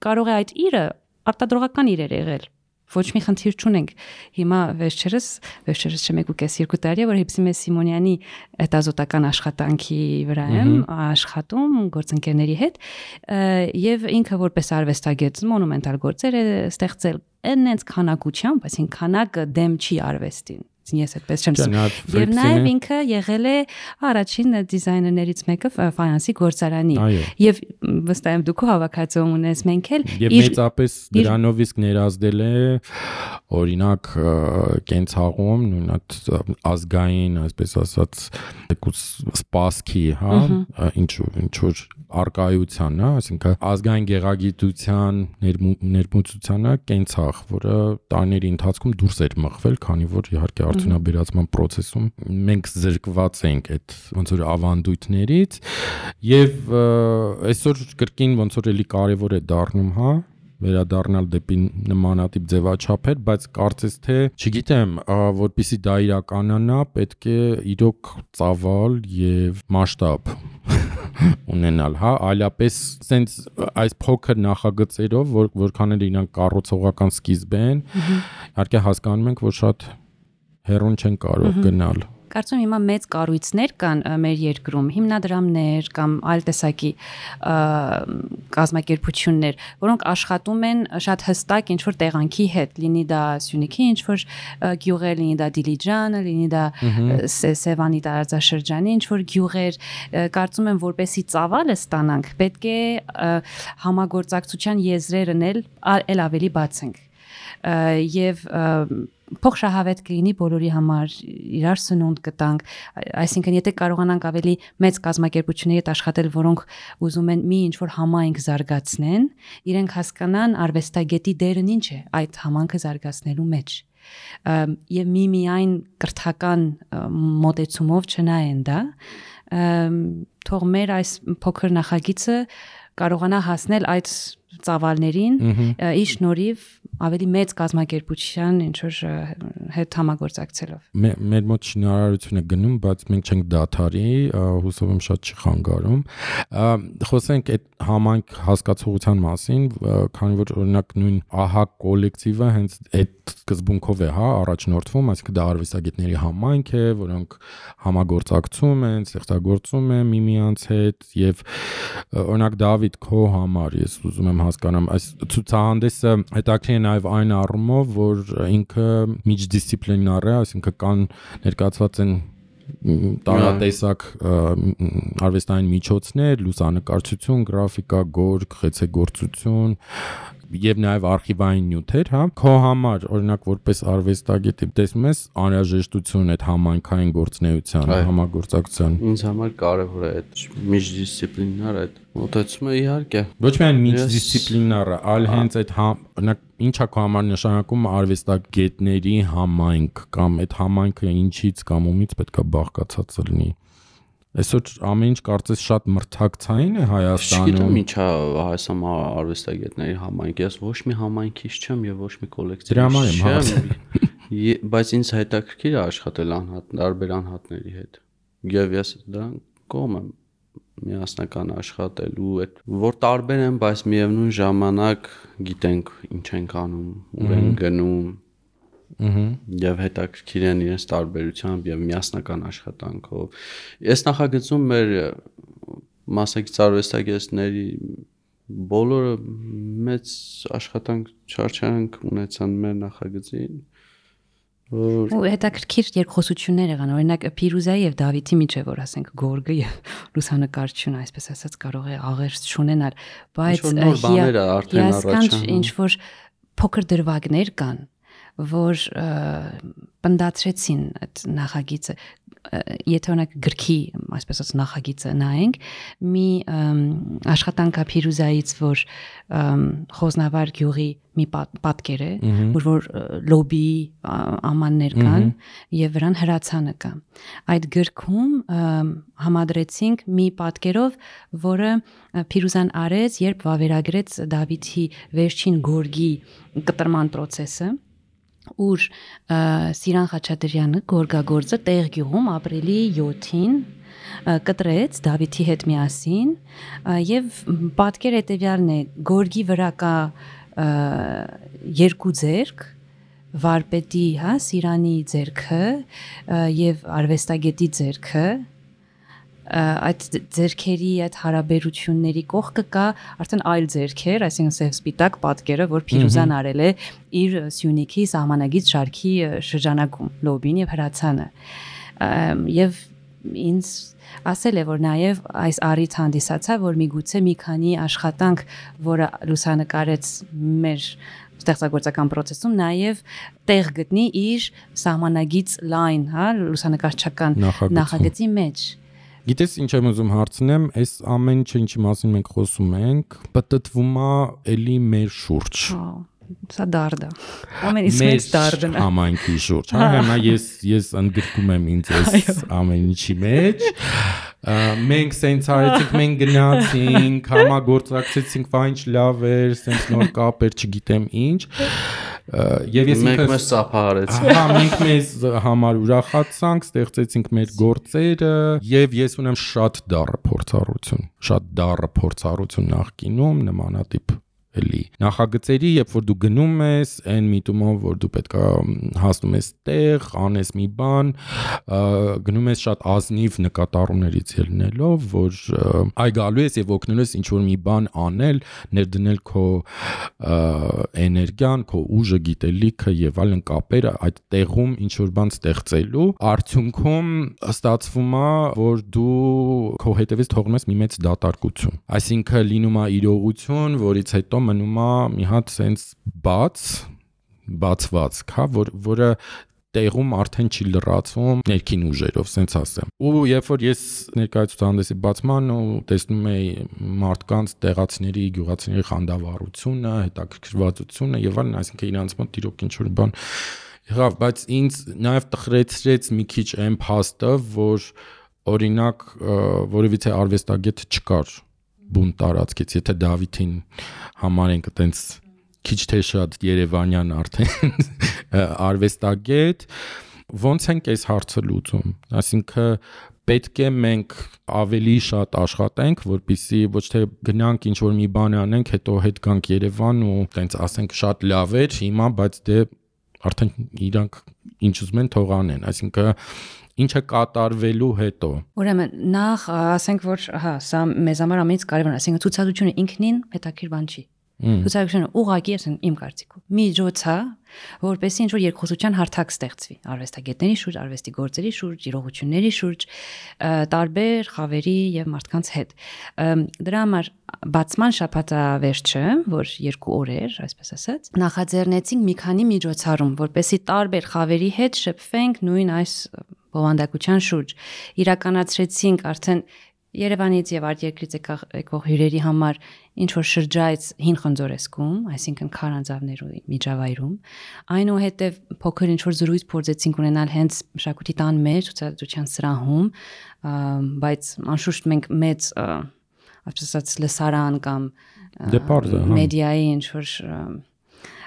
Speaker 2: կարող է այդ իրը արտադրողական իրեր եղել, ոչ մի խնդիր չունենք։ Հիմա վերջերս չէ 1.5-2 տարի է, որ Հիփսիմե Սիմոնյանի հետազոտական աշխատանքի վրա եմ աշխատում գործընկերների հետ եւ ինքը որպես արվեստագետ մոնումենտալ գործեր է ստեղծել այնց քանակությամբ, այսինքն քանակը դեմ չի արվեստին։ Ես այդպես չեմ ասում։ Եվ նաև ինքը եղել է առաջին դիզայներներից մեկը ֆայանսի գործարանի։ Եվ վստահ եմ դուք հավաքածու ունես, մենք էլ
Speaker 1: եւ մեծապես դրանով իսկ ներազդել է օրինակ կենցաղում նույն այդ ազգային, այսպես ասած, սպասքի, հա, ինչ որ արկայության, հա, այսինքն ազգային գեղագիտության ներմուծությանը կենցաղ, որը տարիների ընթացքում դուրս էր մղվել, քանի որ իհարկե արդյունաբերացման process-ում մենք զրկված ենք այդ ոնց որ ավանդույթներից եւ այսօր կրկին ոնց որ էլի կարեւոր է դառնում, հա, վերադառնալ դեպի նմանատիպ ձևաչափեր, բայց կարծես թե, չգիտեմ, որպեսզի դա իրականանա, պետք է իրոք ծավալ եւ մասշտաբ ունենալ, հա, այլապես sense այս փոքր նախագծերով, որքան էլ իրանք կառուցողական սկիզբ են, իհարկե հասկանում ենք, որ շատ հեռուն չեն կարող գնալ։
Speaker 2: Կարծում հիմա մեծ կառույցներ կան մեր երկրում, հիմնադրամներ կամ այլ տեսակի կազմակերպություններ, որոնք աշխատում են շատ հստակ ինչ-որ տեղանքի հետ, լինի դա Սյունիքի ինչ-որ գյուղեր, լինի դա Դիլիջանը, լինի դա Սևանի տարածաշրջանի ինչ-որ գյուղեր, կարծում եմ որպեսի ծավալը ստանանք, պետք է համագործակցության եզրերն էլ ավելի բացենք եւ փոխշահավետ կլինի բոլորի համար, իրար սնունդ կտանք, այսինքն եթե կարողանանք ավելի մեծ կազմակերպությունների հետ աշխատել, որոնք ուզում են մի ինչ-որ համայնք զարգացնեն, իրենք հասկանան արվեստագետի դերն ինչ է այդ համայնքը զարգացնելու մեջ։ Եվ միայն կրթական մոտեցումով չնայեն դա, թող մեր այս փոքր նախագիծը կարողանա հասնել այդ ծավալներին ի շնորհիվ ավելի մեծ կազմակերպության ինչ որ հետ համագործակցելով։
Speaker 1: Մեր մոտ շինարարություն է գնում, բայց մենք չենք դադարի, հուսով եմ շատ չի խանգարում։ Խոսենք այդ համայնք հասկացողության մասին, քանի որ օրինակ նույն ԱՀԱ կոլեկտիվը հենց այդ սկզբունքով է, առաջնորդվում, այսինքն դա արվեստագետների համայնք է, որոնք համագործակցում են, ստեղծագործում են միմյանց հետ եւ օրինակ Դավիթ քո համար ես ուզում եմ հասկանամ, այս ցուցահանդեսը հետաքրքիր է նաեւ այն առումով, որ ինքը միջդիսցիպլինար է, այսինքն կան ներկայացված են տարատեսակ արվեստային միջոցներ, լուսանկարչություն, գրաֆիկա, գորգ, խեցեգործություն եւ նաեւ արխիվային նյութեր, հա։ Քո համար օրինակ որպես արվեստագետ տեսնում ես անհրաժեշտություն այդ համայնքային գործունեության, համագործակցության։
Speaker 3: Ինձ համար կարևոր է այդ միջդիսցիպլինար այդ մոտեցումը իհարկե։
Speaker 1: Ոչ միայն միջդիսցիպլինարը, այլ հենց այդ օրինակ ինչա քո համար նշանակում արվեստագետների համայնք կամ այդ համայնքը ինչից կամ ումից պետքա բաղկացած լինի։ Այսօր ամեն ինչ կարծես շատ մրցակցային է Հայաստանում։
Speaker 3: Չգիտեմ ինչա Հայաստան արվեստագետների համայնք, ես ոչ մի համայնքից չեմ եւ ոչ մի կոլեկտիվից չեմ, բայց ինձ հետաքրքիր է աշխատել տարբեր անհատների հետ։ Եվ ես դրան կողմ եմ միասնական աշխատելու, այդ որ տարբեր են, բայց միևնույն ժամանակ գիտենք ինչ ենք անում, ուր են գնում։ Եվ հետաքրքիր են իրենց տարբերությամբ եւ միասնական աշխատանքով։ Ես նախագծում մեր մասնակից արվեստագետների բոլորը մեծ աշխատանք չարչարանք ունեցան մեր նախագծին։
Speaker 2: Ու հետաքրքիր երկխոսություններ եղան, օրինակ Փիրուզայի եւ Դավիթի միջեւ, որ ասենք գորգը եւ լուսանկարչությունը, այսպես ասած, կարող է աղերս չունենալ, բայց ինչ որ փոքր դրվագներ կան, որ պնդացրեցին այդ նախագիծը, եթե օրինակ գրքի, այսպես ասած, նախագիծը նայենք, մի աշխատանքա Փիրուզայից, որ Խոզնավար գյուղի մի պատկեր է, որ լոբի ամաններ կան եւ վրան հրացանը կա։ Այդ գրքում համադրեցինք մի պատկերով, որը Փիրուզան արեց, երբ վավերագրեց Դավիթի վերջին գորգի կտրման process-ը, ուր Սիրան Խաչատրյանը գորգագործը տեղ գյուղում ապրիլի 7-ին կտրեց Դավիթի հետ միասին եւ պատկեր հետեւյալն է, գորգի վրա կա երկու ձեռք, վարպետի, հա, Սիրանի ձեռքը եւ արվեստագետի ձեռքը, այդ ձեռքերի այդ հարաբերությունների կողքը կա արդեն այլ ձեռքեր, այսինքն սև սպիտակ պատկերը, որ Փիրուզան արել է իր Սյունիքի սահմանագից շարքի շրջանակում, լոբին եւ հրացանը։ Եվ ինձ ասել է, որ նաեւ այս առիթ հանդիսացա, որ միգուցե մի քանի աշխատանք, որը լուսանկարեց մեր ստեղծագործական process-ում, նաեւ տեղ գտնի իր սահմանագից լայն, հա, լուսանկարչական նախագծի մեջ։
Speaker 1: Գիտես ինչ եմ ուզում հարցնեմ, այս ամեն ինչը ինչի մասին մենք խոսում ենք, պատտվում է էլի մեր շուրջ։
Speaker 2: Սա դարդ է։ Ամենից մեծ դարդն է։
Speaker 1: Համայնքի շուրջ, հա, հիմա ես ընդգրկում եմ ինձ այս ամեն ինչի մեջ։ Մենք սենց արեցինք, մենք գնացինք, համագործակցեցինք, վայ ինչ լավ էր, սենց նոր կապեր, չգիտեմ ինչ։ Եվ ես
Speaker 3: մենք մեզ ծափահարեցինք։
Speaker 1: Հա, մենք մեզ համար ուրախացանք, ստեղծեցինք մեր գործերը, եւ ես ունեմ շատ դառը փորձառություն նախկինում նմանատիպ էլի նախագծերի, երբ որ դու գնում ես այն միտումով, որ դու պետքա հասնում ես տեղ, անես մի բան, գնում ես շատ ազնիվ նկատառումներից ելնելով, որ այ գալու ես եւ օգնելու ես ինչ որ մի բան անել, ներդնել քո էներգիան, քո ուժը, գիտելիքը եւ այլն կապերը այդ տեղում ինչ որ բան ստեղծելու, արդյունքում ստացվում է, որ դու քո հետևից թողնում ես մի մեծ դատարկություն, այսինքն լինում է իրողություն, որից հետո մնում է մի հատ սենց բացված, հա, որը տեղում արդեն չի լրացվում ներքին ուժերով, սենց ասեմ։ Ու երբ որ ես ներկայացուցահանդեսի բացման ու տեսնում էի մարդկանց, տեղացիների, գյուղացիների խանդավառությունը, հետաքրքրվածությունը եւ այլն, այսինքն իրանց մոտ իրոք ինչ որ բան եղավ, բայց ինձ նաեւ տխրեցրեց մի քիչ այն փաստը, որ օրինակ որևիցե արվեստագետ չկար բուն տարածքից, եթե Դավիթին համարենք այտենց քիչ թե շատ Երևանյան արդեն արվեստագետ, ոնց ենք այս հարցը լուծում, այսինքն պետք է մենք ավելի շատ աշխատենք, որպեսզի ոչ թե գնանք ինչ որ մի բան անենք, հետո հետ գանք Երևան ու տենց ասենք շատ լավ էր, հիմա բայց դե արդեն իրանք ինչ ուզում են թող անեն, այսինքն ինչը կատարվելու հետո։ Ուրեմն
Speaker 2: նախ ասենք որ հա, սա մեզ համար ամենից կարևորն է, այսինքն ցուցադրությունը ինքնին հետաքրքիր բան չի։ Ցուցադրությունը ուղղակի է իմ կարծիքով միջոց է, որպեսզի ինչ-որ երկխոսության հարթակ ստեղծվի արվեստագետների շուրջ, արվեստի գործերի շուրջ, իրողությունների շուրջ, տարբեր խավերի եւ մարդկանց հետ։ Դրա համար բացման շաբաթավերջը, որ 2 օր էր, այսպես ասած, նախաձեռնեցինք մի քանի միջոցառում, որպեսզի տարբեր խավերի հետ շփվենք նույն այս բովանդակության շուրջ։ Իրականացրեցինք արդեն Երևանից եւ արտերկրից եկող հյուրերի համար ինչ որ շրջայց հին Խնձորեսկում, այսինքն Քարանձավներու միջավայրում, այնուհետև փոքր ինչ որ զրույց փորձեցինք ունենալ հենց մշակույթի տան մեջ ցուցադրության սրահում, բայց անշուշտ մենք մեծ, այսպես ասած, լսարան կամ մեդիայի ինչ որ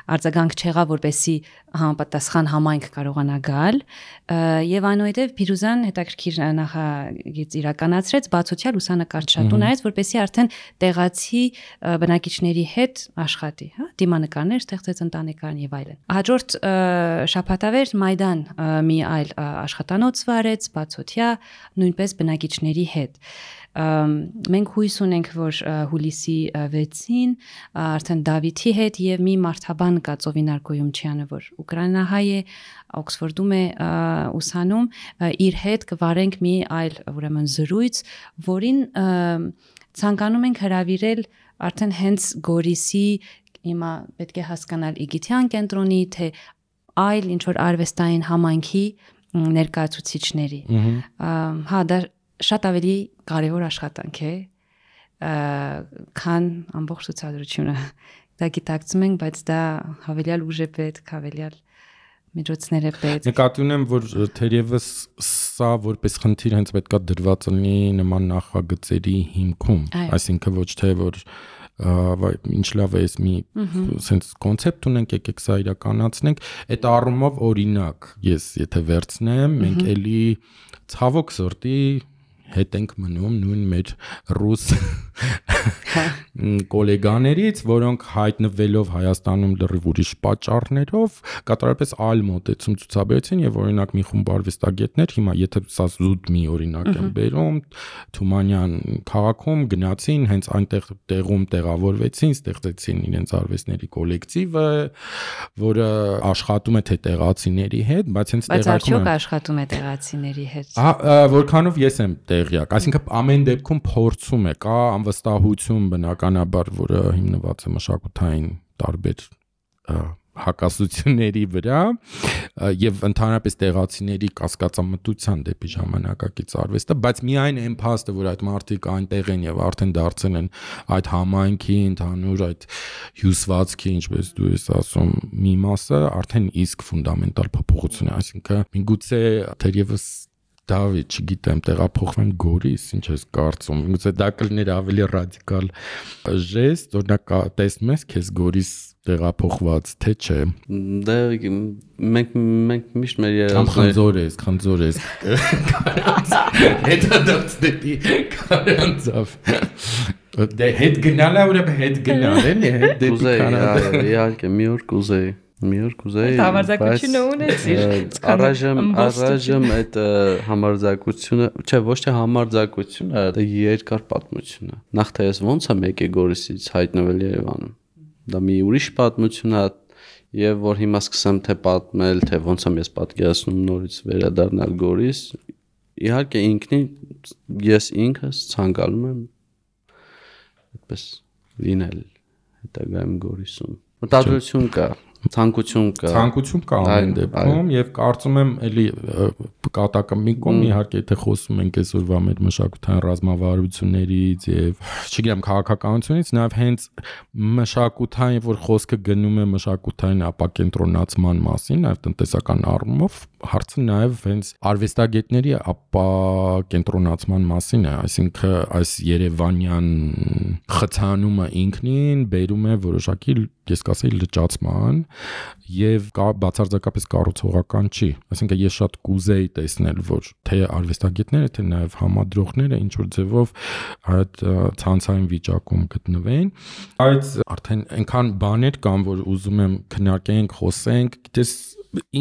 Speaker 2: արձագանք չեղավ, որպեսզի համապատասխան համայնք կարողանա գալ, եւ այնուհետեւ Փիրուզան հետաքրքիր նախագիծ իրականացրեց, բացօթյա լուսանկարչատու նայեց, որպեսզի արդեն տեղացի բնակիչների հետ աշխատի, հա, դիմանկարներ ստեղծեց, ընտանեկան եւ այլն։ Հաջորդ շաբաթավեր Մայդան մի այլ աշխատանոց վարեց, բացօթյա, նույնպես բնակիչների հետ։ Մենք հույս ունենք, որ հուլիսի 6-ին արդեն Դավիթի հետ եւ մի մարդաբան կա Ծովինար Գոյումչյանը, որ ուկրաինահայ է, Օքսֆորդում է ուսանում, իր հետ կվարենք մի այլ ուրեմն զրույց, որին ցանկանում ենք հրավիրել արդեն հենց Գորիսի, հիմա պետք է հասկանալ Իգիթյան կենտրոնի, թե այլ ինչ որ արվեստային համայնքի ներկայացուցիչների։ Հա, դա շատ ավելի կարևոր աշխատանք է, քան ամբողջ ցուցադրությունը։ Դա գիտակցում ենք, բայց դա հավելյալ ուժ է պետք, հավելյալ միջոցներ է պետք։
Speaker 1: Նկատի ունեմ, որ թերևս սա որպես խնդիր հենց պետքա դրված լինի նման նախագծերի հիմքում, այսինքն ոչ թե որ ինչ լավ է էս մի sense կոնցեպտ ունենք, եկեք սա իրականացնենք, այդ առումով օրինակ, ես եթե վերցնեմ, մենք էլի ցավոք սրտի հետ ենք մնում նույն մեր ռուս գոլեգաներից, որոնք հայտնվելով Հայաստանում լրիվ ուրիշ պատճառներով կատարապես այլ մոտեցում ցուցաբերեցին եւ օրինակ մի խումբ արվեստագետներ, հիմա եթե սա զուտ մի օրինակ եմ բերում, Թումանյան քաղաքում գնացին, հենց այնտեղ տեղում տեղավորվեցին, ստեղծեցին իրենց արվեստների կոլեկտիվը, որը աշխատում է թե տեղացիների հետ, բայց հենց
Speaker 2: տեղակայքում աշխատում է տեղացիների հետ։
Speaker 1: Որքանով ես եմ տեղյակ, այսինքն ամեն դեպքում փորձում է, կա անվստահություն բնականաբար, որը հիմնված է մշակութային տարբեր հակասությունների վրա եւ ընդհանրապես տեղացիների կասկածամտության դեպի ժամանակակից արվեստը, բայց միայն այն փաստը, որ այդ մարդիկ այնտեղ են եւ արդեն դարձել են այդ համայնքի ընդհանուր այդ հյուսվածքի, ինչպես դու ես ասում, մի մասը, արդեն իսկ ֆունդամենտալ փոփոխություն է, այսինքն միգուցե թերևս Դավիթ, չգիտեմ, տեղափոխվեն Գորիս, ինչ ես կարծում։ Միգուցե դա կլիներ ավելի ռադիկալ ժեստ, օրինակ տեսնում ես քեզ Գորիս տեղափոխված, թե չէ։
Speaker 3: Դե մենք միշտ մեր երազանքները
Speaker 1: խնձոր ես։ Հետո դարձ դեպի Քարանձավ։ Դե հետ գնալա ուրեմն հետ գնալ էլի, հետ դեպի Քարանձավ։
Speaker 3: Իհարկե, մի օր կուզեի։
Speaker 2: Համարձակությունը ունեցիր։
Speaker 3: Առայժմ այդ համարձակությունը, չէ, ոչ թե համարձակությունը, դա երկար պատմություն է։ Նախ թե ես ոնց եմ եկել Գորիսից հայտնվել Երևանում։ Դա մի ուրիշ պատմություն է, եւ որ հիմա սկսեմ թե պատմել, թե ոնց եմ ես պատկերացնում նորից վերադառնալ Գորիս։ Իհարկե ինքնին ես ինքս ցանկանում եմ այդպես լինել հետագայում Գորիսում։ Մտադրություն կա, ցանկություն կա
Speaker 1: ամեն դեպքում եւ կարծում եմ էլի կատակը մի կողմ իհարկե եթե խոսում ենք այսօրվա մեր մշակութային ռազմավարություններից եւ չգիտեմ քաղաքականությունից նաեւ հենց մշակութային որ խոսքը գնում է մշակութային ապակենտրոնացման մասին նաեւ տնտեսական առումով հարցը նաև հենց արվեստագետների ապակենտրոնացման մասին է, այսինքն այս Երևանյան խցանումը ինքնին բերում է որոշակի, ես կասեի, լճացման եւ բացարձակապես կառուցողական չի, այսինքն ես շատ կուզեի տեսնել, որ թե արվեստագետները, թե նաև համադրողները ինչ որ ձևով այդ ցանցային վիճակում գտնվեն, բայց արդեն այնքան բաներ կան, որ ուզում եմ քննարկենք, խոսենք, գիտես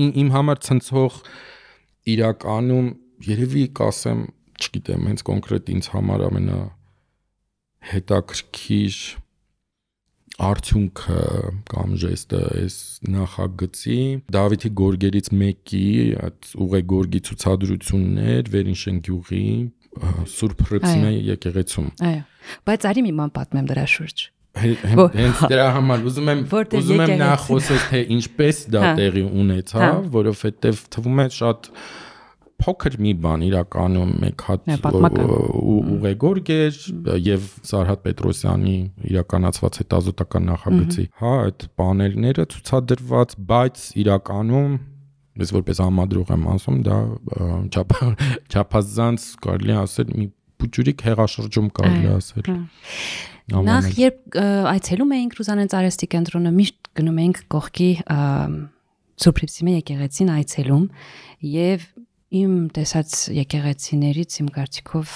Speaker 1: իմ համար ցնցող իրականում երևի կասեմ, չգիտեմ, հենց կոնկրետ ինձ համար ամենա հետաքրքիր արդյունքը կամ ժեստը այս նախագծի Դավիթի գորգերից մեկի այդ ուղեգորգի ցուցադրություններ Վերինշեն գյուղի Սուրբ Հռիփսիմե եկեղեցում։
Speaker 2: Այո, բայց արի մի բան պատմեմ դրա շուրջ։
Speaker 1: Հենց դրա համար ուզում եմ նախ խոսել թե ինչպես դա տեղի ունեցավ, որովհետև թվում է շատ փոքր մի բան իրականում մեկ հատ ուղեգորգ էր եւ Սարհատ Պետրոսյանի իրականացված հետազոտական նախագծի, այդ պանելները ցուցադրված, բայց իրականում ես որպես համադրող եմ ասում, դա չափազանց կարելի ասել մի փուճուրիկ հեղաշրջում կարելի ասել։
Speaker 2: Նախ երբ այցելում էինք Ռուզանենց արհեստի կենտրոնը, միշտ գնում էինք կողքի Սուրբ Հռիփսիմե եկեղեցին այցելում եւ իմ տեսած եկեղեցիներից իմ կարծիքով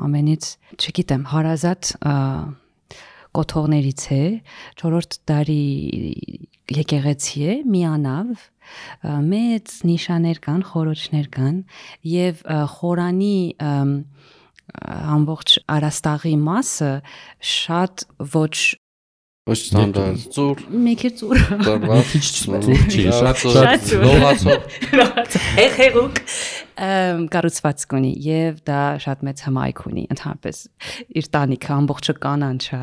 Speaker 2: ամենից, չգիտեմ, հարազատ կոթողներից է, 4-րդ դարի եկեղեցի է, միանավ, մեծ նիշաներ կան, խորոչներ կան եւ խորանի ամբողջ արաստաղի մասը շատ ոչ
Speaker 3: ստանդարտ ծուր
Speaker 2: մեկի ծուր
Speaker 1: ծուր չի, շատ
Speaker 3: լողացող
Speaker 2: հեղուկ կառուցվածք ունի եւ դա շատ մեծ հմայք ունի ընդհանրապես իր տանիքը ամբողջը կանանչ է։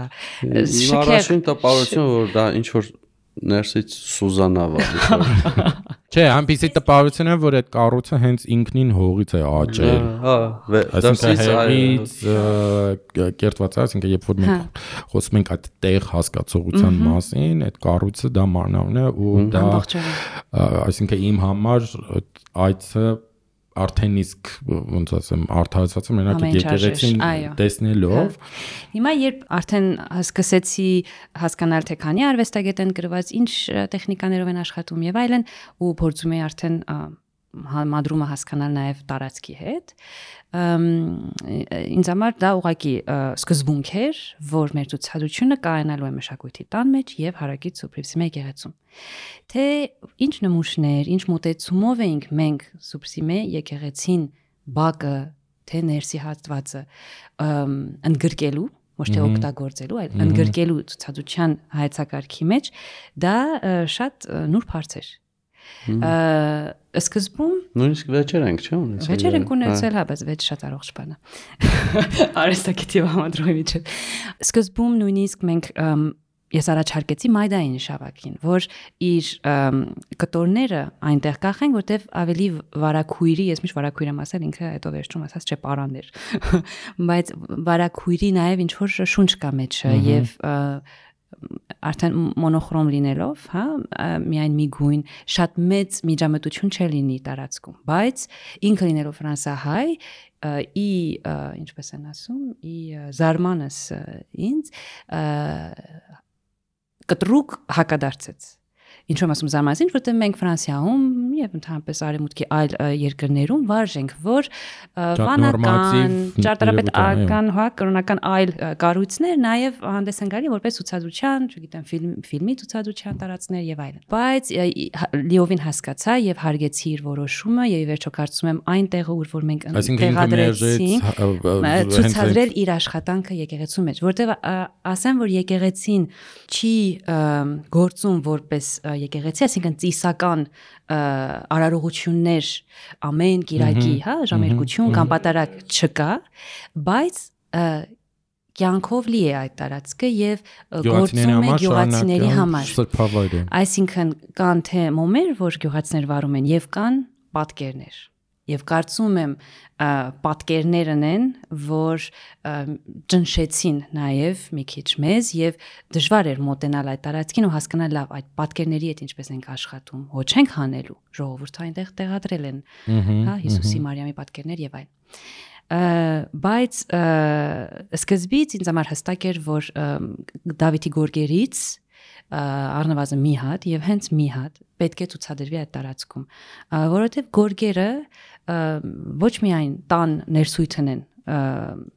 Speaker 3: Առաջին տպավորությունը որ դա ինչ որ ներսից Սուզանավ է։
Speaker 1: Չէ, այնպեսի տպավորություն է, որ այդ կառույցը հենց ինքնին հողից է աճել։ Դրսից կերտված է, այսինքն երբ որ մենք խոսում ենք այդ տեղ հասկացողության մասին, այդ կառույցը դա մանավն է ու դա այսինքն իմ համար այցը արդեն իսկ ոնց ասեմ արդարացած եմ մենակ եկեղեցին տեսնելով
Speaker 2: հիմա երբ արդեն սկսեցի հասկանալ թե քանի արվեստագետ են գրված ինչ տեխնիկաներով են աշխատում եւ այլն ու փորձում եմ արդեն համադրումը հասկանալ նաեւ տարածքի հետ ինձ համար դա ուղղակի սկզբունք էր որ մեր ցուցադրությունը կայանալու է մշակույթի տան մեջ եւ հարակից Սուրբ Հռիփսիմե եկեղեցում թե ինչ նմուշներ ինչ մոտեցումով էինք մենք Սուրբ Հռիփսիմե եկեղեցին բակը թե ներսի հատվածը ընդգրկելու ոչ թե օգտագործելու այլ ընդգրկելու ցուցադրության հայեցակարգի մեջ դա շատ նուրբ հարց էր Սկզբում
Speaker 3: նույնիսկ վեճեր ենք, չէ՞, ունեցել։
Speaker 2: Վեճեր ենք ունեցել, հա, բայց վեճ շատ առողջ բան է։ Արհեստագետի համադրողի միջև։ Սկզբում նույնիսկ մենք ես առաջարկեցի Մայդային շավակին, որ իր կտորները այնտեղ կախեն, որտեվ ավելի վարակույրի, ես միշտ վարակույր եմ ասել, ինքը հետո վերջում ասած չէ պարաններ։ Բայց վարակույրի նաև ինչ որ շունչ կա մեջը եւ արդեն մոնոխրոմ լինելով, հա, միայն մի գույն, շատ մեծ միջամտություն չլինի տարածքում, բայց ինքը լինելով ֆրանսահայ, ինչպես են ասում, զարմանս ինձ կտրուկ հակադարձեց։ Ինչու եմ ասում զարմանալի, որտեղ մենք Ֆրանսիայում եւ ընդհանրապես արևմուտքի այլ երկրներում վարժենք, որ վանական, ճարտարապետական, հա, կրոնական այլ կառույցներ նաեւ հանդես են գալի որպես ցուցադրության, չգիտեմ, ֆիլմի ցուցադրության տարածքներ եւ այլն։ Բայց լիովին հասկացա եւ հարգեցի իր որոշումը եւ ի վերջո կարծում եմ այն տեղը, ուր որ մենք տեղադրեցինք, ցուցադրել իր աշխատանքը եկեղեցու մեջ, որտեղ ասեմ, որ եկեղեցին չի գործում որպես եկեղեցի, այսինքն ծիսական արարողություններ ամեն կիրակի, հա, ժամերկություն կամ պատարակ չկա, բայց կյանքով լի է այդ տարածքը եւ գործում է գյուղացիների համար։ Այսինքն կան թե մոմեր, որ գյուղացիներ վարում են եւ կան պատկերներ։ եւ կարծում եմ պատկերներն են, որ ճնշեցին նաեւ մի քիչ մեզ եւ դժվար էր մոտենալ այդ տարածքին ու հասկանալ լավ այդ պատկերների հետ ինչպես ենք աշխատում, ոչ ենք հանելու, ժողովուրդը այնտեղ տեղադրել են, հա, Հիսուսի Մարիամի պատկերներ եւ այլն։ Բայց սկզբից ինձ համար հստակ էր, որ Դավիթի գորգերից առնվազն մի հատ եւ հենց մի հատ պետք է ցուցադրվի այդ տարածքում, որովհետեւ գորգերը ոչ միայն տան ներսույթն են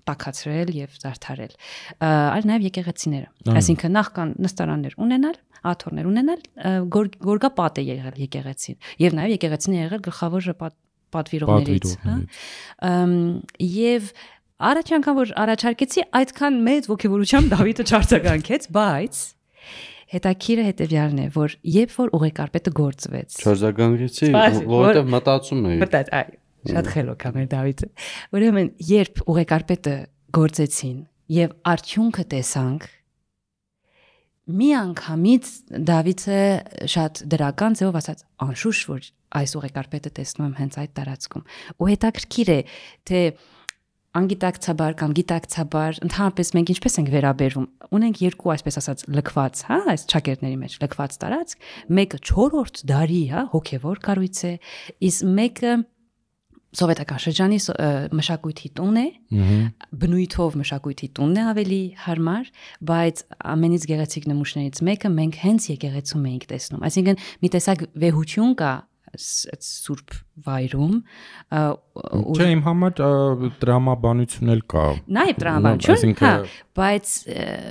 Speaker 2: տաքացրել եւ զարդարել, այլ նաեւ եկեղեցիները, այսինքն նախ կան նստարաններ ունենալ, աթոռներ ունենալ, գորգապատ է եղել եկեղեցին եւ նաեւ եկեղեցին է եղել գլխավոր պատվիրողներից, հա, եւ առաջ անգամ որ առաջարկեցի այդքան մեծ ոգևորությամբ Դավիթը չարձագանքեց, բայց հետաքրքիրը հետեւյալն է, որ երբ որ ուղեկարպետը գործվեց,
Speaker 3: չարձագանքեցի, որովհետեւ մտածում էի։
Speaker 2: այ, շատ խելոք է մեր Դավիթը։ Ուրեմն, երբ ուղեկարպետը գործեցին եւ արդյունքը տեսանք, մի անգամից Դավիթը շատ դրական ձևով ասաց, անշուշտ որ այս ուղեկարպետը տեսնում եմ հենց այդ տարածքում։ Ու հետաքրքիր է, թե անգիտակցաբար կամ գիտակցաբար ընդհանրապես մենք ինչպես ենք վերաբերվում, ունենք երկու այսպես ասած լքված, հա, այս ճակերտների մեջ լքված տարածք, մեկը 4-րդ դարի, հա, հոգևոր կառույց է, իսկ մեկը սովետական շրջանի մշակույթի տուն է, բնույթով մշակույթի տունն է ավելի հարմար, բայց ամենից գեղեցիկ նմուշներից մեկը մենք հենց եկեղեցում էինք տեսնում։ Այսինքն մի տեսակ վեհություն կա սուրբ վայրում,
Speaker 1: չէ, իմ համար տրամաբանություն էլ կա։
Speaker 2: Նաև տրամաբանություն, հա, բայց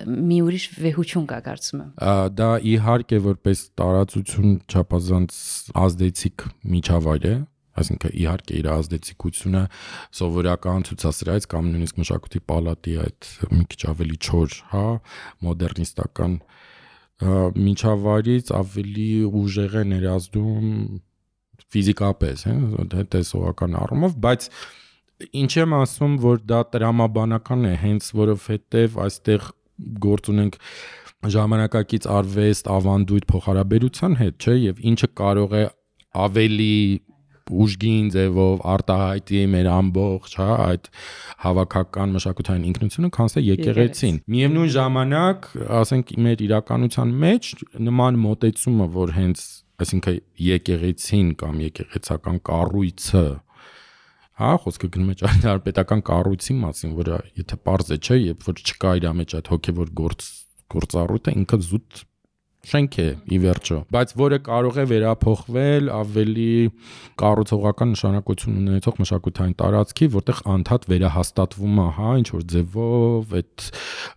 Speaker 2: մի ուրիշ վեհություն կա, կարծում եմ։
Speaker 1: Դա իհարկե որպես տարածություն չափազանց ազդեցիկ միջավայր է, այսինքն իհարկե իր ազդեցիկությունը սովորական ցուցասրահից կամ նույնիսկ մշակույթի պալատի այդ մի քիչ ավելի չոր, հա, մոդեռնիստական միջավայրից ավելի ուժեղ է ներազդում ֆիզիկապես, հա, տեսողական առումով, բայց ինչ եմ ասում, որ դա տրամաբանական է, հենց որովհետև այստեղ գործ ունենք ժամանակակից արվեստ, ավանդույթ փոխհարաբերության հետ, չէ, եւ ինչը կարող է ավելի ուժգին ձևով արտահայտի մեր ամբողջ, հա, այդ հավաքական մշակութային ինքնությունը, քան թե եկեղեցին։ Միևնույն ժամանակ, ասենք մեր իրականության մեջ նման մոտեցումը, որ հենց, այսինքն եկեղեցին կամ եկեղեցական կառույցը, հա, խոսքը գնում է ճարտարապետական կառույցի մասին, որը եթե պարզ է, չէ, երբ որ չկա իր մեջ այդ հոգևոր գործառույթը, ինքը զուտ շենք է ի վերջո, բայց որը կարող է վերափոխվել ավելի կառուցողական նշանակություն ունեցող մշակութային տարածքի, որտեղ անդադ վերահաստատվում է, հա, ինչ որ ձևով այդ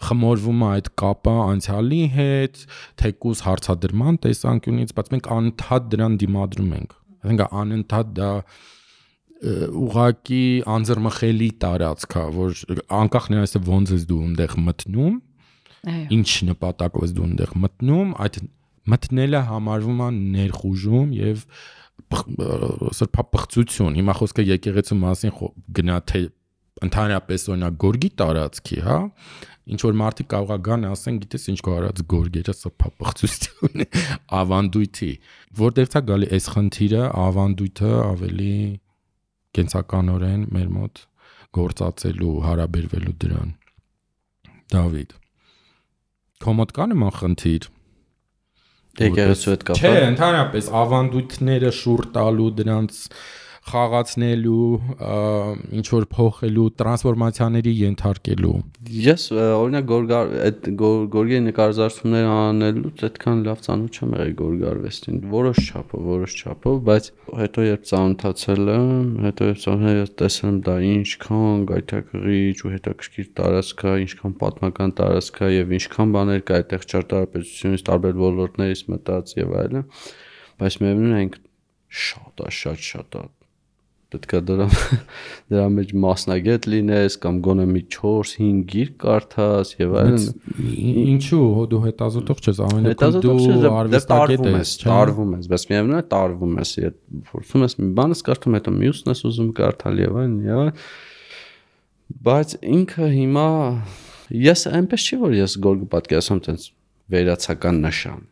Speaker 1: խմորվում է այդ կապը անցյալի հետ, թեկուզ հարցադրման տեսանկյունից, բայց մենք անդադ դրան դիմադրում ենք։ Այսինքն անընդհատ դա ուղակի անձեռմխելի տարածք է, որ անկախ նրանից ոնց ես դու այնտեղ մտնում, ինչ նպատակով ես դու այնտեղ մտնում, այդ մտնելը համարվում է ներխուժում եւ սրբապղծություն։ Հիմա խոսքը եկեղեցու մասին գնա թե ընդհանրապես օրինակ գորգի տարածքի, հա, ինչ որ մարդիկ կարող է գան ասեն, գիտես ինչ կա արած գորգերը սրբապղծություն ավանդույթի, որտեղից է գալի այս խնդիրը, ավանդույթը ավելի կենսականորեն մեր մոտ գործածելու, հարաբերվելու դրան։ Դավիթ, քո մոտ կա նման խնդիր։
Speaker 3: Եկեղեցու հետ կապ։
Speaker 1: Չէ, ընդհանրապես ավանդույթները շուռ տալու, դրանց խաղացնելու, ինչ որ փոխելու, տրանսֆորմացիաների ենթարկելու։
Speaker 3: Ես օրինակ այդ գորգի նկարազարդումներ անելուց այդքան լավ ծանոթ չեմ եղել գորգարվեստին, որոշ չափով, բայց հետո երբ ծանոթացել եմ, տեսել եմ դա ինչքան գայթակղիչ ու հետաքրքիր տարածք է, ինչքան պատմական տարածք է եւ ինչքան բաներ կա այդտեղ ճարտարապետությունից, տարբեր ոլորտներից մտած եւ այլն, բայց միևնույն է շատ պետք է դրա մեջ մասնագետ լինես կամ գոնե մի 4-5 գիրք կարդաս եւ այլն։
Speaker 1: Ինչու դու հետազոտող չես, ամենակում դու արվեստագետ ես,
Speaker 3: տարվում ես, բայց միևնույն է տարվում ես, փորձում ես մի բանը կարդում, հետո մյուսն ես ուզում կարդալ եւ այլն, բայց ինքը հիմա ես այնպես չի որ ես գորգը պատկերացնում տենց վերացական նշան։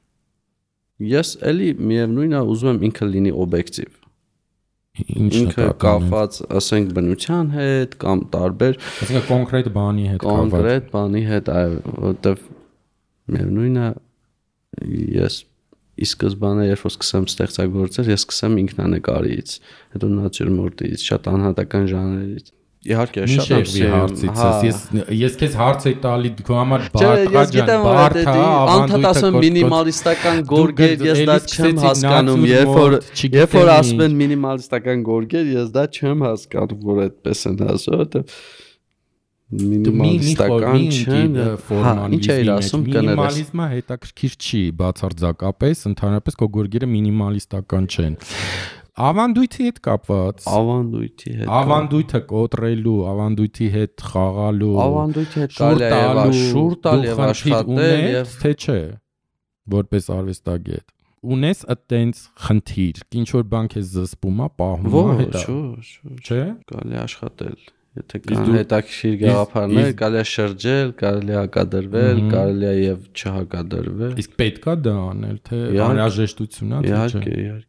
Speaker 3: Ես էլի միևնույնն է ուզում եմ ինքը լինի օբյեկտիվ։ Ինքը կապված, ասենք, բնության հետ կամ տարբեր,
Speaker 1: այսինքն կոնկրետ բանի հետ կապված։
Speaker 3: Կոնկրետ բանի հետ, այո, որտեվ միևնույնն է, ես ի սկզբանե երբ որ սկսեմ ստեղծագործել, ես սկսեմ ինքնանկարից, հետո նատյուրմորտից, շատ անհատական ժանրերից։ Իհարկե, շատ
Speaker 1: հարցից ես քեզ հարց եի տալի քո համար բարդ է,
Speaker 3: անդադ ասում մինիմալիստական գորգեր, ես դա չեմ հասկանում, երբ որ ասում են մինիմալիստական գորգեր, ես դա չեմ հասկանում, որ այդպես են ասում, որտեղ մինիմալիստական չեն ֆորմալիզմի,
Speaker 1: մինիմալիզմը հետաքրքիր չի բացարձակապես, ընդհանրապես քո գորգերը մինիմալիստական չեն։ Ավանդույթի հետ կապված, ավանդույթը կոտրելու, ավանդույթի հետ խաղալու,
Speaker 3: ավանդույթի հետ կարելի է շուր տալ եւ աշխատել եւ
Speaker 1: թե չէ, որպես արվեստագետ ունես այդտենց խնդիր, ինչ որ բան քեզ զսպում է, պահում է, հետո չէ,
Speaker 3: կարելի է աշխատել, եթե կան հետաքրքիր գաղափարներ, կարելի է շրջել, կարելի է հակադրվել, կարելի է եւ չհակադրվել։
Speaker 1: Իսկ պետք է դա անել, թե անհրաժեշտություն է, թե չէ։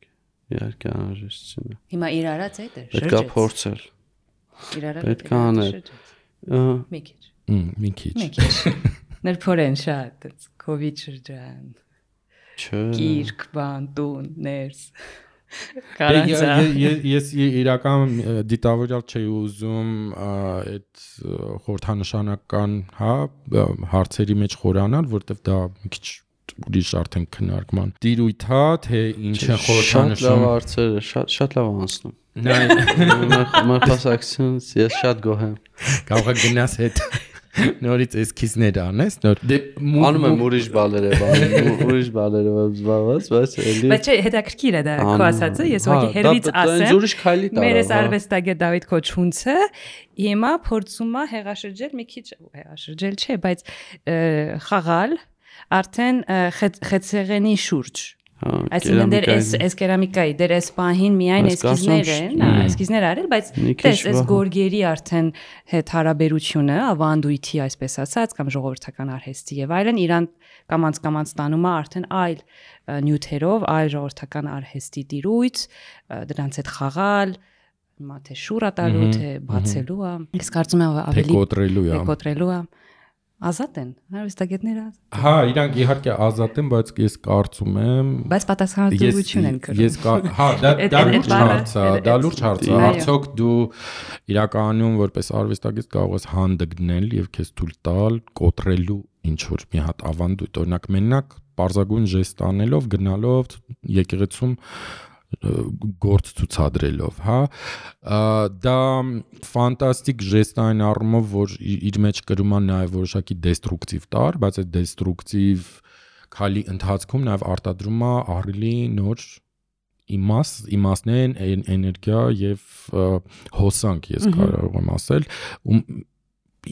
Speaker 3: Իհարկե անհրաժեշտություն է։
Speaker 2: Հիմա իր արած է դա,
Speaker 3: պետք է փորձել։
Speaker 2: Իր արած
Speaker 3: պետք է անել։
Speaker 1: Մի քիչ։
Speaker 2: Ներփորեն շատ, COVID շրջան։
Speaker 3: Չէ։
Speaker 2: Գիրք, բան, տուն, ներս։
Speaker 1: Ես իրական դիտավորյալ չէի ուզում այդ խորհրդանշանական, հարցերի մեջ խորանալ, որտեվ դա մի քիչ ուրիշ արդեն քննարկման տիրույթ է, թե ինչ է խորհրդանշում։
Speaker 3: Շատ լավ հարցեր, շատ լավ անցնում։ Մեր խոսակցությունից ես շատ գոհ եմ։
Speaker 1: Կարող է գնաս հետ նորից էսքիզներ անես,
Speaker 3: անում եմ ուրիշ բաներով զբաղված, բայց էլի։
Speaker 2: Բայց չէ, հետաքրքիր է դա քո ասածը, ես ուղղակի հերվից ասեմ։
Speaker 3: Ուրիշ քայլի տարա։
Speaker 2: Մեր արվեստագետ Դավիթ Քոչունցը հիմա փորձում է հեղաշրջել մի քիչ, հեղաշրջել չէ, բայց խաղալ արդեն խեցեղենի շուրջ։ Այսինքն դեր էս կերամիկայի, դեր էս պահին միայն էսքիզներ են, էսքիզներ արել, բայց տես էս գորգերի արդեն հետ հարաբերությունը, ավանդույթի, այսպես ասած, կամ ժողովրդական արհեստի եւ այլն իրան կամած ստանում է արդեն այլ նյութերով, այլ ժողովրդական արհեստի տիրույթ, դրանց հետ խաղալ, հիմա թե շուրա տալու, թե բացելու է։ Ես կարծում եմ ավելի կոտրելու է։ Ազատ են, արվեստագետները ազատ։
Speaker 1: Հա, իրանք իհարկե ազատ են, բայց ես կարծում եմ,
Speaker 2: բայց պատասխանատվություն են կրում։
Speaker 1: Հա, դա լուրջ հարց է, դա լուրջ հարց է։ Արդյոք դու իրականում որպես արվեստագետ կարող ես հանդգնել եւ քեզ թույլ տալ կոտրելու ինչ որ մի հատ ավանդույթ, օրինակ մենակ պարզագույն ժեստ անելով, գնալով եկեղեցում գործ ցուցադրելով, հա, դա ֆանտաստիկ ժեստ այն առումով, որ իր մեջ կրում է նաև որոշակի դեստրուկտիվ տար, բայց այդ դեստրուկտիվ քայլի ընթացքում նաև արտադրում է ահռելի նոր իմաստներ, էներգիա եւ հոսանք, ես կարող եմ ասել,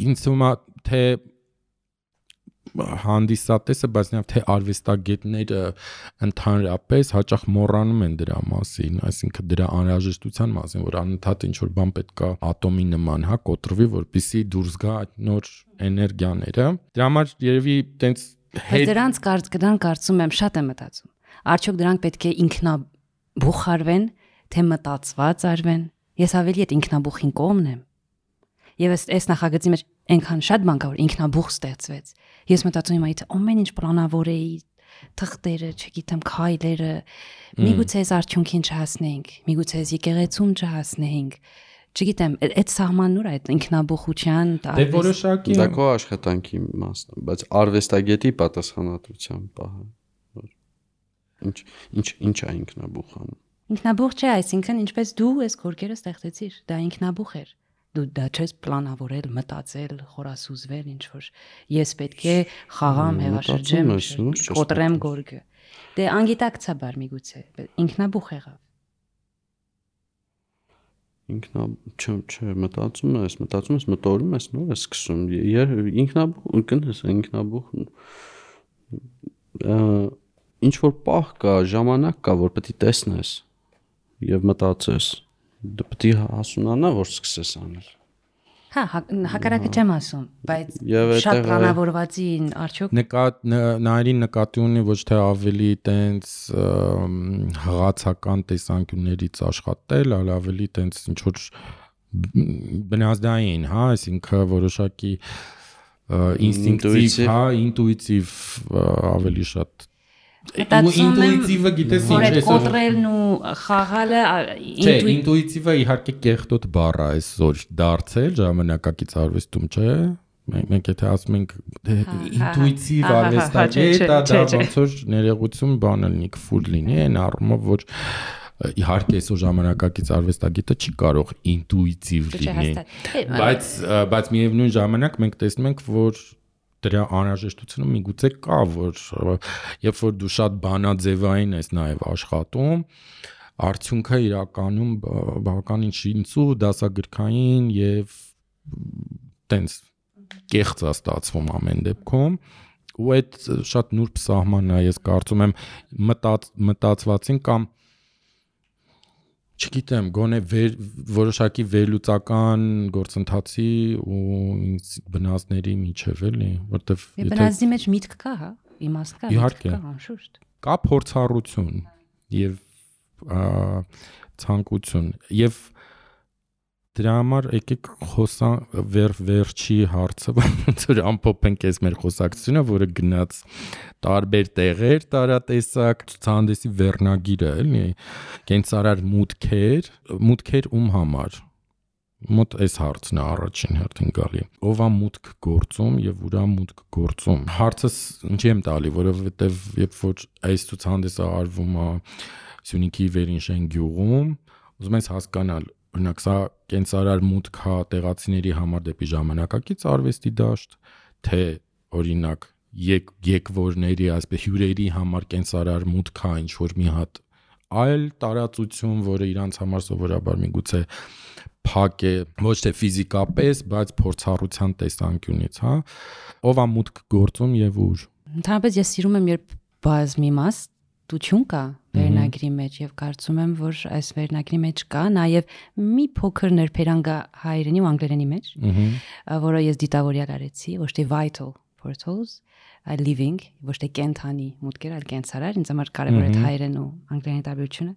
Speaker 1: ինձ թվում է թե հանդիսատեսը, բայց նաև թե արվեստագետները ընդհանրապես հաճախ մոռանում են դրա մասին, այսինքն դրա անհրաժեշտության մասին, որ անընդհատ ինչ որ բան պետք է ատոմի նման, հա, կոտրվի, որպեսզի դուրս գա այդ նոր էներգիաները։ Դրա համար երևի տենց
Speaker 2: դրանք կարծում եմ շատ եմ մտածում։ Արդյոք դրանք պետք է ինքնաբուխարվեն, թե մտածված արվեն։ Ես ավելի այդ ինքնաբուխին կողմն եմ։ Եվ այս նախագծի մեջ այնքան շատ բան կա, որ ինքնաբուխ ստեղծվեց։ Ես մտածում եմ, այդ ամեն ինչ պլանավոր էի, թղթերը, չգիտեմ, քայլերը, միգուցե այս արդյունքին չհասնենք, միգուցե այս եկեղեցում չհասնենք։ Չգիտեմ, այդ սահմանն ուր է այդ ինքնաբուխության,
Speaker 1: դե որոշակի
Speaker 3: դա քո աշխատանքի մասն է, բայց արվեստագետի պատասխանատվության պահը։ Ինչ է ինքնաբուխան։
Speaker 2: Ինքնաբուխ չէ, այսինքն ինչպես դու այս գորգերը ստեղծեցիր, դա ինքնաբուխ էր։ Դու դա չես պլանավորել, մտածել, խորասուզվել, ինչ որ ես պետք է խաղամ, հեղաշրջեմ, կոտրեմ գորգը։ Դե անգիտակցաբար միգուցե, ինքնաբուխ եղավ։
Speaker 3: Չէ, մտածում ես, մտորում ես, նոր ես սկսում։ Ինքնաբուխ, կնես, ինքնաբուխ ինչ որ պահ կա, ժամանակ կա, որ պետք է տեսնես եւ մտածես։ Դու պետք է հասունանա, որ սկսես անել։
Speaker 2: Հա, հակառակը չեմ ասում, բայց
Speaker 3: Եվ
Speaker 2: շատ
Speaker 3: այդտեղ
Speaker 2: պլանավորվածին արդյոք
Speaker 1: նայրին նկատի ունի ոչ թե ավելի տենց հղացական տեսանկյուններից աշխատել, այլ ավելի տենց ինչ որ բնազդային, հա, այսինքն որոշակի ինստինկտիվ, հա, ինտուիտիվ ավելի շատ ինտուիտիվը գիտես ինչ է
Speaker 2: կոտրելն ու խաղալը
Speaker 1: չէ, ինտուիտիվը իհարկե կեղտոտ բառ է այսօր դարձել ժամանակակից արվեստում, չէ։ Մենք եթե ասում ենք ինտուիտիվ արվեստագետ, դա ոնց որ ներողություն բանը լինի, քֆուր լինի, այն առումով որ իհարկե այսօր ժամանակակից արվեստագետը չի կարող ինտուիտիվ լինի, բայց միևնույն ժամանակ մենք տեսնում ենք, որ դրա անհրաժեշտությունը միգուցե կա, որ երբ որ դու շատ բանաձևային ես նաև աշխատում, արդյունքը իրականում բավականին շինծու, դասագրքային եւ տենց կեղծ է ստացվում ամեն դեպքում, ու այդ շատ նուրբ սահմանն է, ես կարծում եմ մտածվածին կամ չգիտեմ, գոնե որոշակի վերլուծական գործընթացի ու բնազդների միջև էլի, որտեվ
Speaker 2: բնազդի մեջ միտք կա, հա, իմաստ կա, միտք կա, անշուշտ։
Speaker 1: Կա փորձառություն եւ ցանկություն եւ դրա համար եկեք խոսանք վերջի հարցը, ոնց որ ամփոփենք այս մեր խոսակցությունը, որը գնաց տարբեր տեղեր, տարատեսակ ցուցահանդեսի վերնագիրը, էլի, կենցարար մուտքեր ում համար։ Մոտ այս հարցն է առաջին հերթին գալի։ Ով է մուտք գործում եւ ուրա մուտք գործում։ Հարցս ինչի եմ տալի, որովհետեւ երբ որ այս ցուցահանդեսը արվում է Սյունիքի Վերինշեն գյուղում, ուզում ես հասկանալ, օրինակ սա կենցարար մուտք է տեղացիների համար դեպի ժամանակակից արվեստի դաշտ, թե օրինակ եկվորների, այսպես հյուրերի համար կենցարար մուտք է ինչ որ մի հատ այլ տարածություն, որը իրանց համար սովորաբար միգուցե փակ է, ոչ թե ֆիզիկապես, բայց փորձառության տեսանկյունից, հա, ով է մուտք գործում եւ ուր։
Speaker 2: Ընդհանրապես ես սիրում եմ, երբ բազմիմաստություն կա վերնագրի մեջ եւ կարծում եմ, որ այս վերնագրի մեջ կա նաեւ մի փոքր ներբերանգա հայերենի ու անգլերենի մեջ, որը ես դիտավորյալ արեցի, ոչ թե vital portals, այլ living, ոչ թե կենթանի մուտքեր, այլ կենցարար, ինձ համար կարևոր է հայերեն ու անգլերենի տարբերությունը։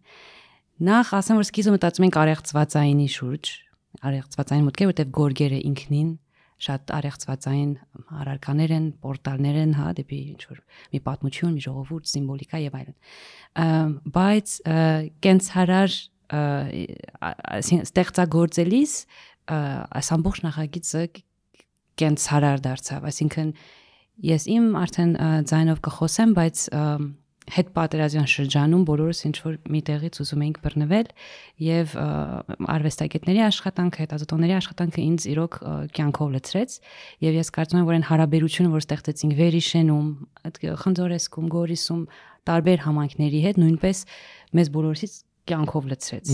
Speaker 2: Նախ ասեմ, որ սկիզբը մտածում ենք արեղծվածայինի շուրջ, արեղծվածային մուտքեր, որտեղ գորգերը ինքնին շատ արեղծվածային առարկաներ են, պորտալներ են, հա, դեպի ինչ որ մի պատմություն, մի ժողովուրդ, սիմվոլիկա եւ այլն։ Բայց կենցարար ստեղծագործելիս այս ամբողջ նախագիծը կենցարար դարձավ, այսինքն ես իմ արդեն ձայնով կխոսեմ, բայց հետ պատերազմյան շրջանում բոլորս ինչ որ մի տեղից ուզում էինք բռնվել եւ արվեստագետների աշխատանքը, հետազոտողների աշխատանքը ինձ իրոք կյանքով լցրեց եւ ես կարծում եմ, որ այն հարաբերությունը, որ ստեղծեցինք Վերիշենում, այդ Խնձորեսկում, Գորիսում, տարբեր համայնքների հետ նույնպես մեզ բոլորից կյանքով լցրեց։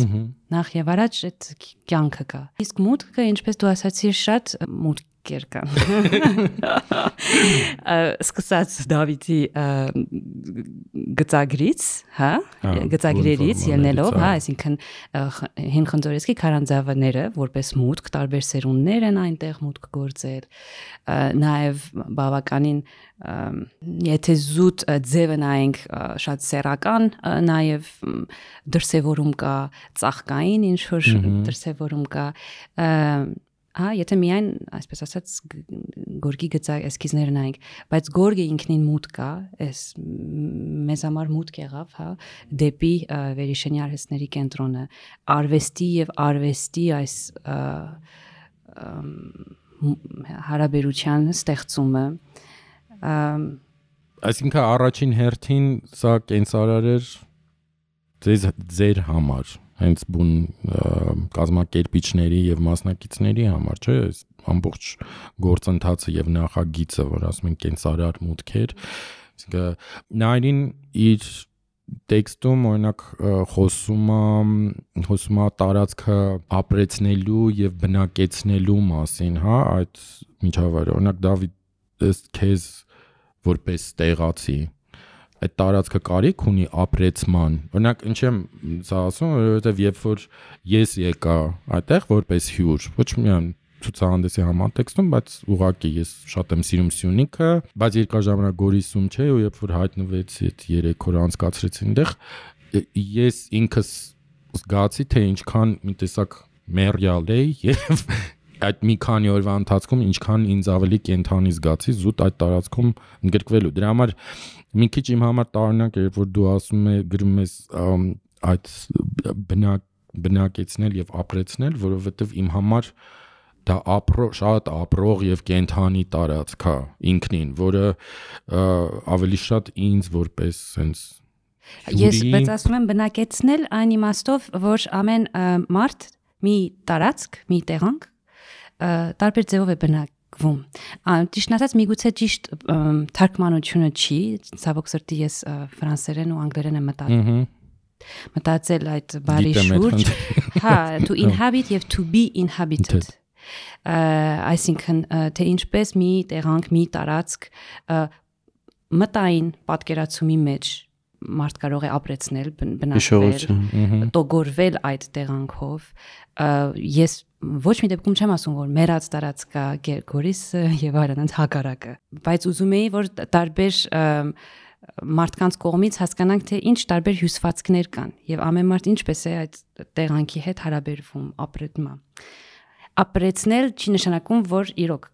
Speaker 2: Նախ եւ առաջ այդ կյանքը կա։ Իսկ մուտքը, ինչպես դու ասացիր, շատ մուտքեր կան։ Սկսած Դավիթի գծագրից, հա, գծագրերից ելնելով, հա, այսինքն Հին Խնձորեսկի քարանձավները որպես մուտք, տարբեր սերունդներ են այնտեղ մուտք գործել, նաև բավականին եթե զուտ ձևը նայենք շատ սեռական, նաև դրսևորում կա ծաղկային ինչ որ դրսևորում կա, հա, եթե միայն, այսպես ասած, գորգի գծակ էսքիզները նայենք, բայց գորգը ինքնին մուտք կա, այս մեզ համար մուտք եղավ, հա, դեպի Վերիշենի արհեստների կենտրոնը, արվեստի եւ արվեստի այս հարաբերության ստեղծումը,
Speaker 1: այսինքն առաջին հերթին սա կենցարար էր ձեր համար, հենց բուն կազմակերպիչների եւ մասնակիցների համար, չէ՞, ամբողջ գործընթացը եւ նախագիծը, որ ասում են կենցարար մուտքեր, այսինքն նայրին իր տեքստում օրինակ խոսում է տարածքը ապրեցնելու եւ բնակեցնելու մասին, հա, այդ միջավայրը, օրինակ Դավիթ քեզ որպես տեղացի այդ տարածքը կարիք ունի ապրեցման։ Օրինակ ինչ եմ սա ասում, որովհետև երբ որ ես եկա այդտեղ որպես հյուր, ոչ միայն ցուցահանդեսի համատեքստում, բայց ուղղակի ես շատ եմ սիրում Սյունիքը, բայց երկար ժամանակ Գորիսում չէ, ու երբ որ հայտնվեցի այդ 3 օր անցկացրեցի այնտեղ, ես ինքս զգացի, թե ինչքան մի տեսակ մերյալ էի եւ այդ մի քանի օրվա ընթացքում ինչքան ինձ ավելի կենթանի զգացի զուտ այդ տարածքում ընդգրկվելու։ Դրա համար մի քիչ իմ համար տարօրինակ է, երբ որ դու ասում ես գրում ես այդ բնակեցնել եւ ապրեցնել, որովհետեւ իմ համար դա շատ ապրող եւ կենթանի տարածք է ինքնին, որը ավելի շատ ինձ որպես sense
Speaker 2: Ես բայց ասում եմ բնակեցնել այն իմաստով, որ ամեն մարդ մի տարածք, մի տեղանք տարբեր ձևով է բնակվում։ Ճիշտ ասած, միգուցե ճիշտ թարգմանությունը չի, ցավոք սրտի ես ֆրանսերեն ու անգլերեն եմ մտածել այդ բառի շուրջ, հա, to inhabit եւ to be inhabited։ Այսինքն թե ինչպես մի տեղանք, մի տարածք մտային պատկերացումի մեջ մարդ կարող է ապրեցնել, բնակվել, տոգորվել այդ տեղանքով։ Ես ոչ մի դեպքում չեմ ասում, որ մեռած տարածք կա Գորիսը եւ այլն հակառակը, բայց ուզում էի, որ տարբեր մարդկանց կողմից հասկանանք, թե ինչ տարբեր հյուսվածքներ կան եւ ամեն մարդ ինչպես է այդ տեղանքի հետ հարաբերվում, ապրում է։ Ապրեցնել չի նշանակում, որ իրոք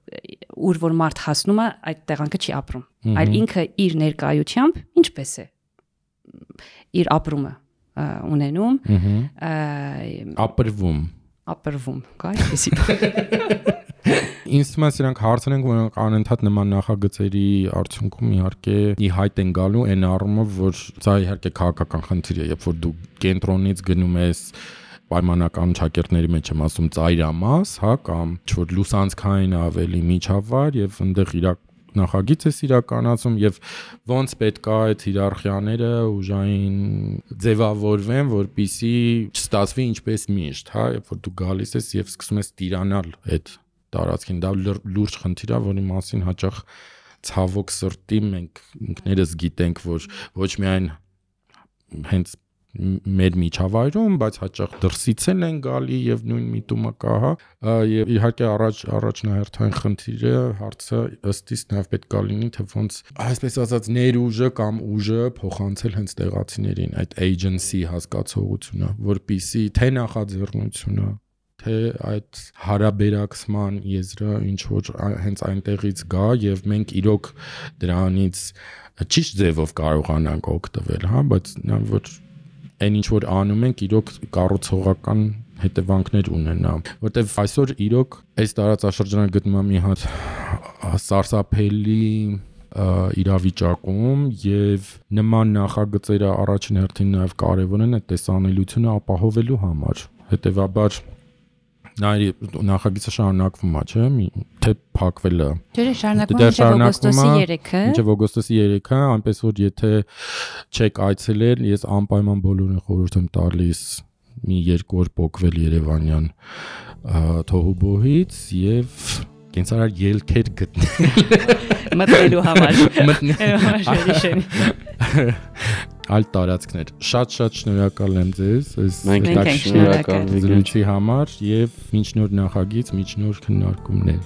Speaker 2: ուր որ մարդ հասնում է, այդ տեղանքը չի ապրում, այլ ինքը իր ներկայությամբ ինչպես է իր ապրումը ունենում, ապրվում, կա այսպեսի։
Speaker 1: Ինձ թվում է սրանք հարցեր են, որոնք անընդհատ նման նախագծերի արդյունքում իհարկե ի հայտ են գալու այն առումով, որ դա իհարկե քաղաքական խնդիր է, երբ որ դու կենտրոնից գնում ես պայմանական ճակերտների մեջ եմ ասում ծայրամաս, հա, կամ ինչ-որ լուսանցքային ավելի միջավայր եւ այնտեղ իրակ նախագիծ է իրականացում եւ ոնց պետք է այդ հիերարխիաները ուժային ձևավորվեն, որպիսի չստացվի ինչպես միշտ, հա, երբ որ դու գալիս ես եւ սկսում ես տիրանալ այդ տարածքին, դա լուրջ խնդիր է, որի մասին հաճախ ցավոք սրտի մենք ինքներս գիտենք, որ ոչ միայն հենց մեր միջավայրում, բայց հաճախ դրսից են գալի եւ նույն միտումը կա, հա, եւ իհարկե առաջնահերթային խնդիրը հարցը ըստիս նաեւ պետք է լինի, թե ոնց այսպես ասած ներուժը կամ ուժը փոխանցել հենց տեղացիներին, այդ agency հասկացողությունը, որpիսի թե նախաձեռնությունը, թե այդ հարաբերակցման եզրը ինչ որ հենց այնտեղից գա եւ մենք իրոք դրանից ճիշտ ձևով կարողանանք օգտվել, հա, բայց նա որ այն ինչ որ անում ենք իրոք կառուցողական հետևանքներ ունենա, որտեվ այսօր իրոք այս տարածաշրջանը գտնվում է մի հատ սարսափելի իրավիճակում եւ նման նախագծերը առաջին հերթին նաեւ կարեւոր են այդ տեսանելիությունը ապահովելու համար, հետեւաբար նախագիծը շարունակվում է, չէ՞, թե փակվել է։
Speaker 2: Չէ, շարունակվում է
Speaker 1: մինչև օգոստոսի 3-ը, այնպես որ եթե չեք այցելել, ես անպայման բոլորին խորհուրդ եմ տալիս մի 2 օր փոկվել Երևանյան թոհուբոհից եւ կենցաղար ելքեր գտնել
Speaker 2: մտնելու համար։
Speaker 1: Այլ տարածքներ։ Շատ շնորհակալ եմ ձեզ այս
Speaker 3: շնորհակալ
Speaker 1: զրույցի համար եւ մինչ նոր նախագիծ, մինչ նոր քննարկումներ։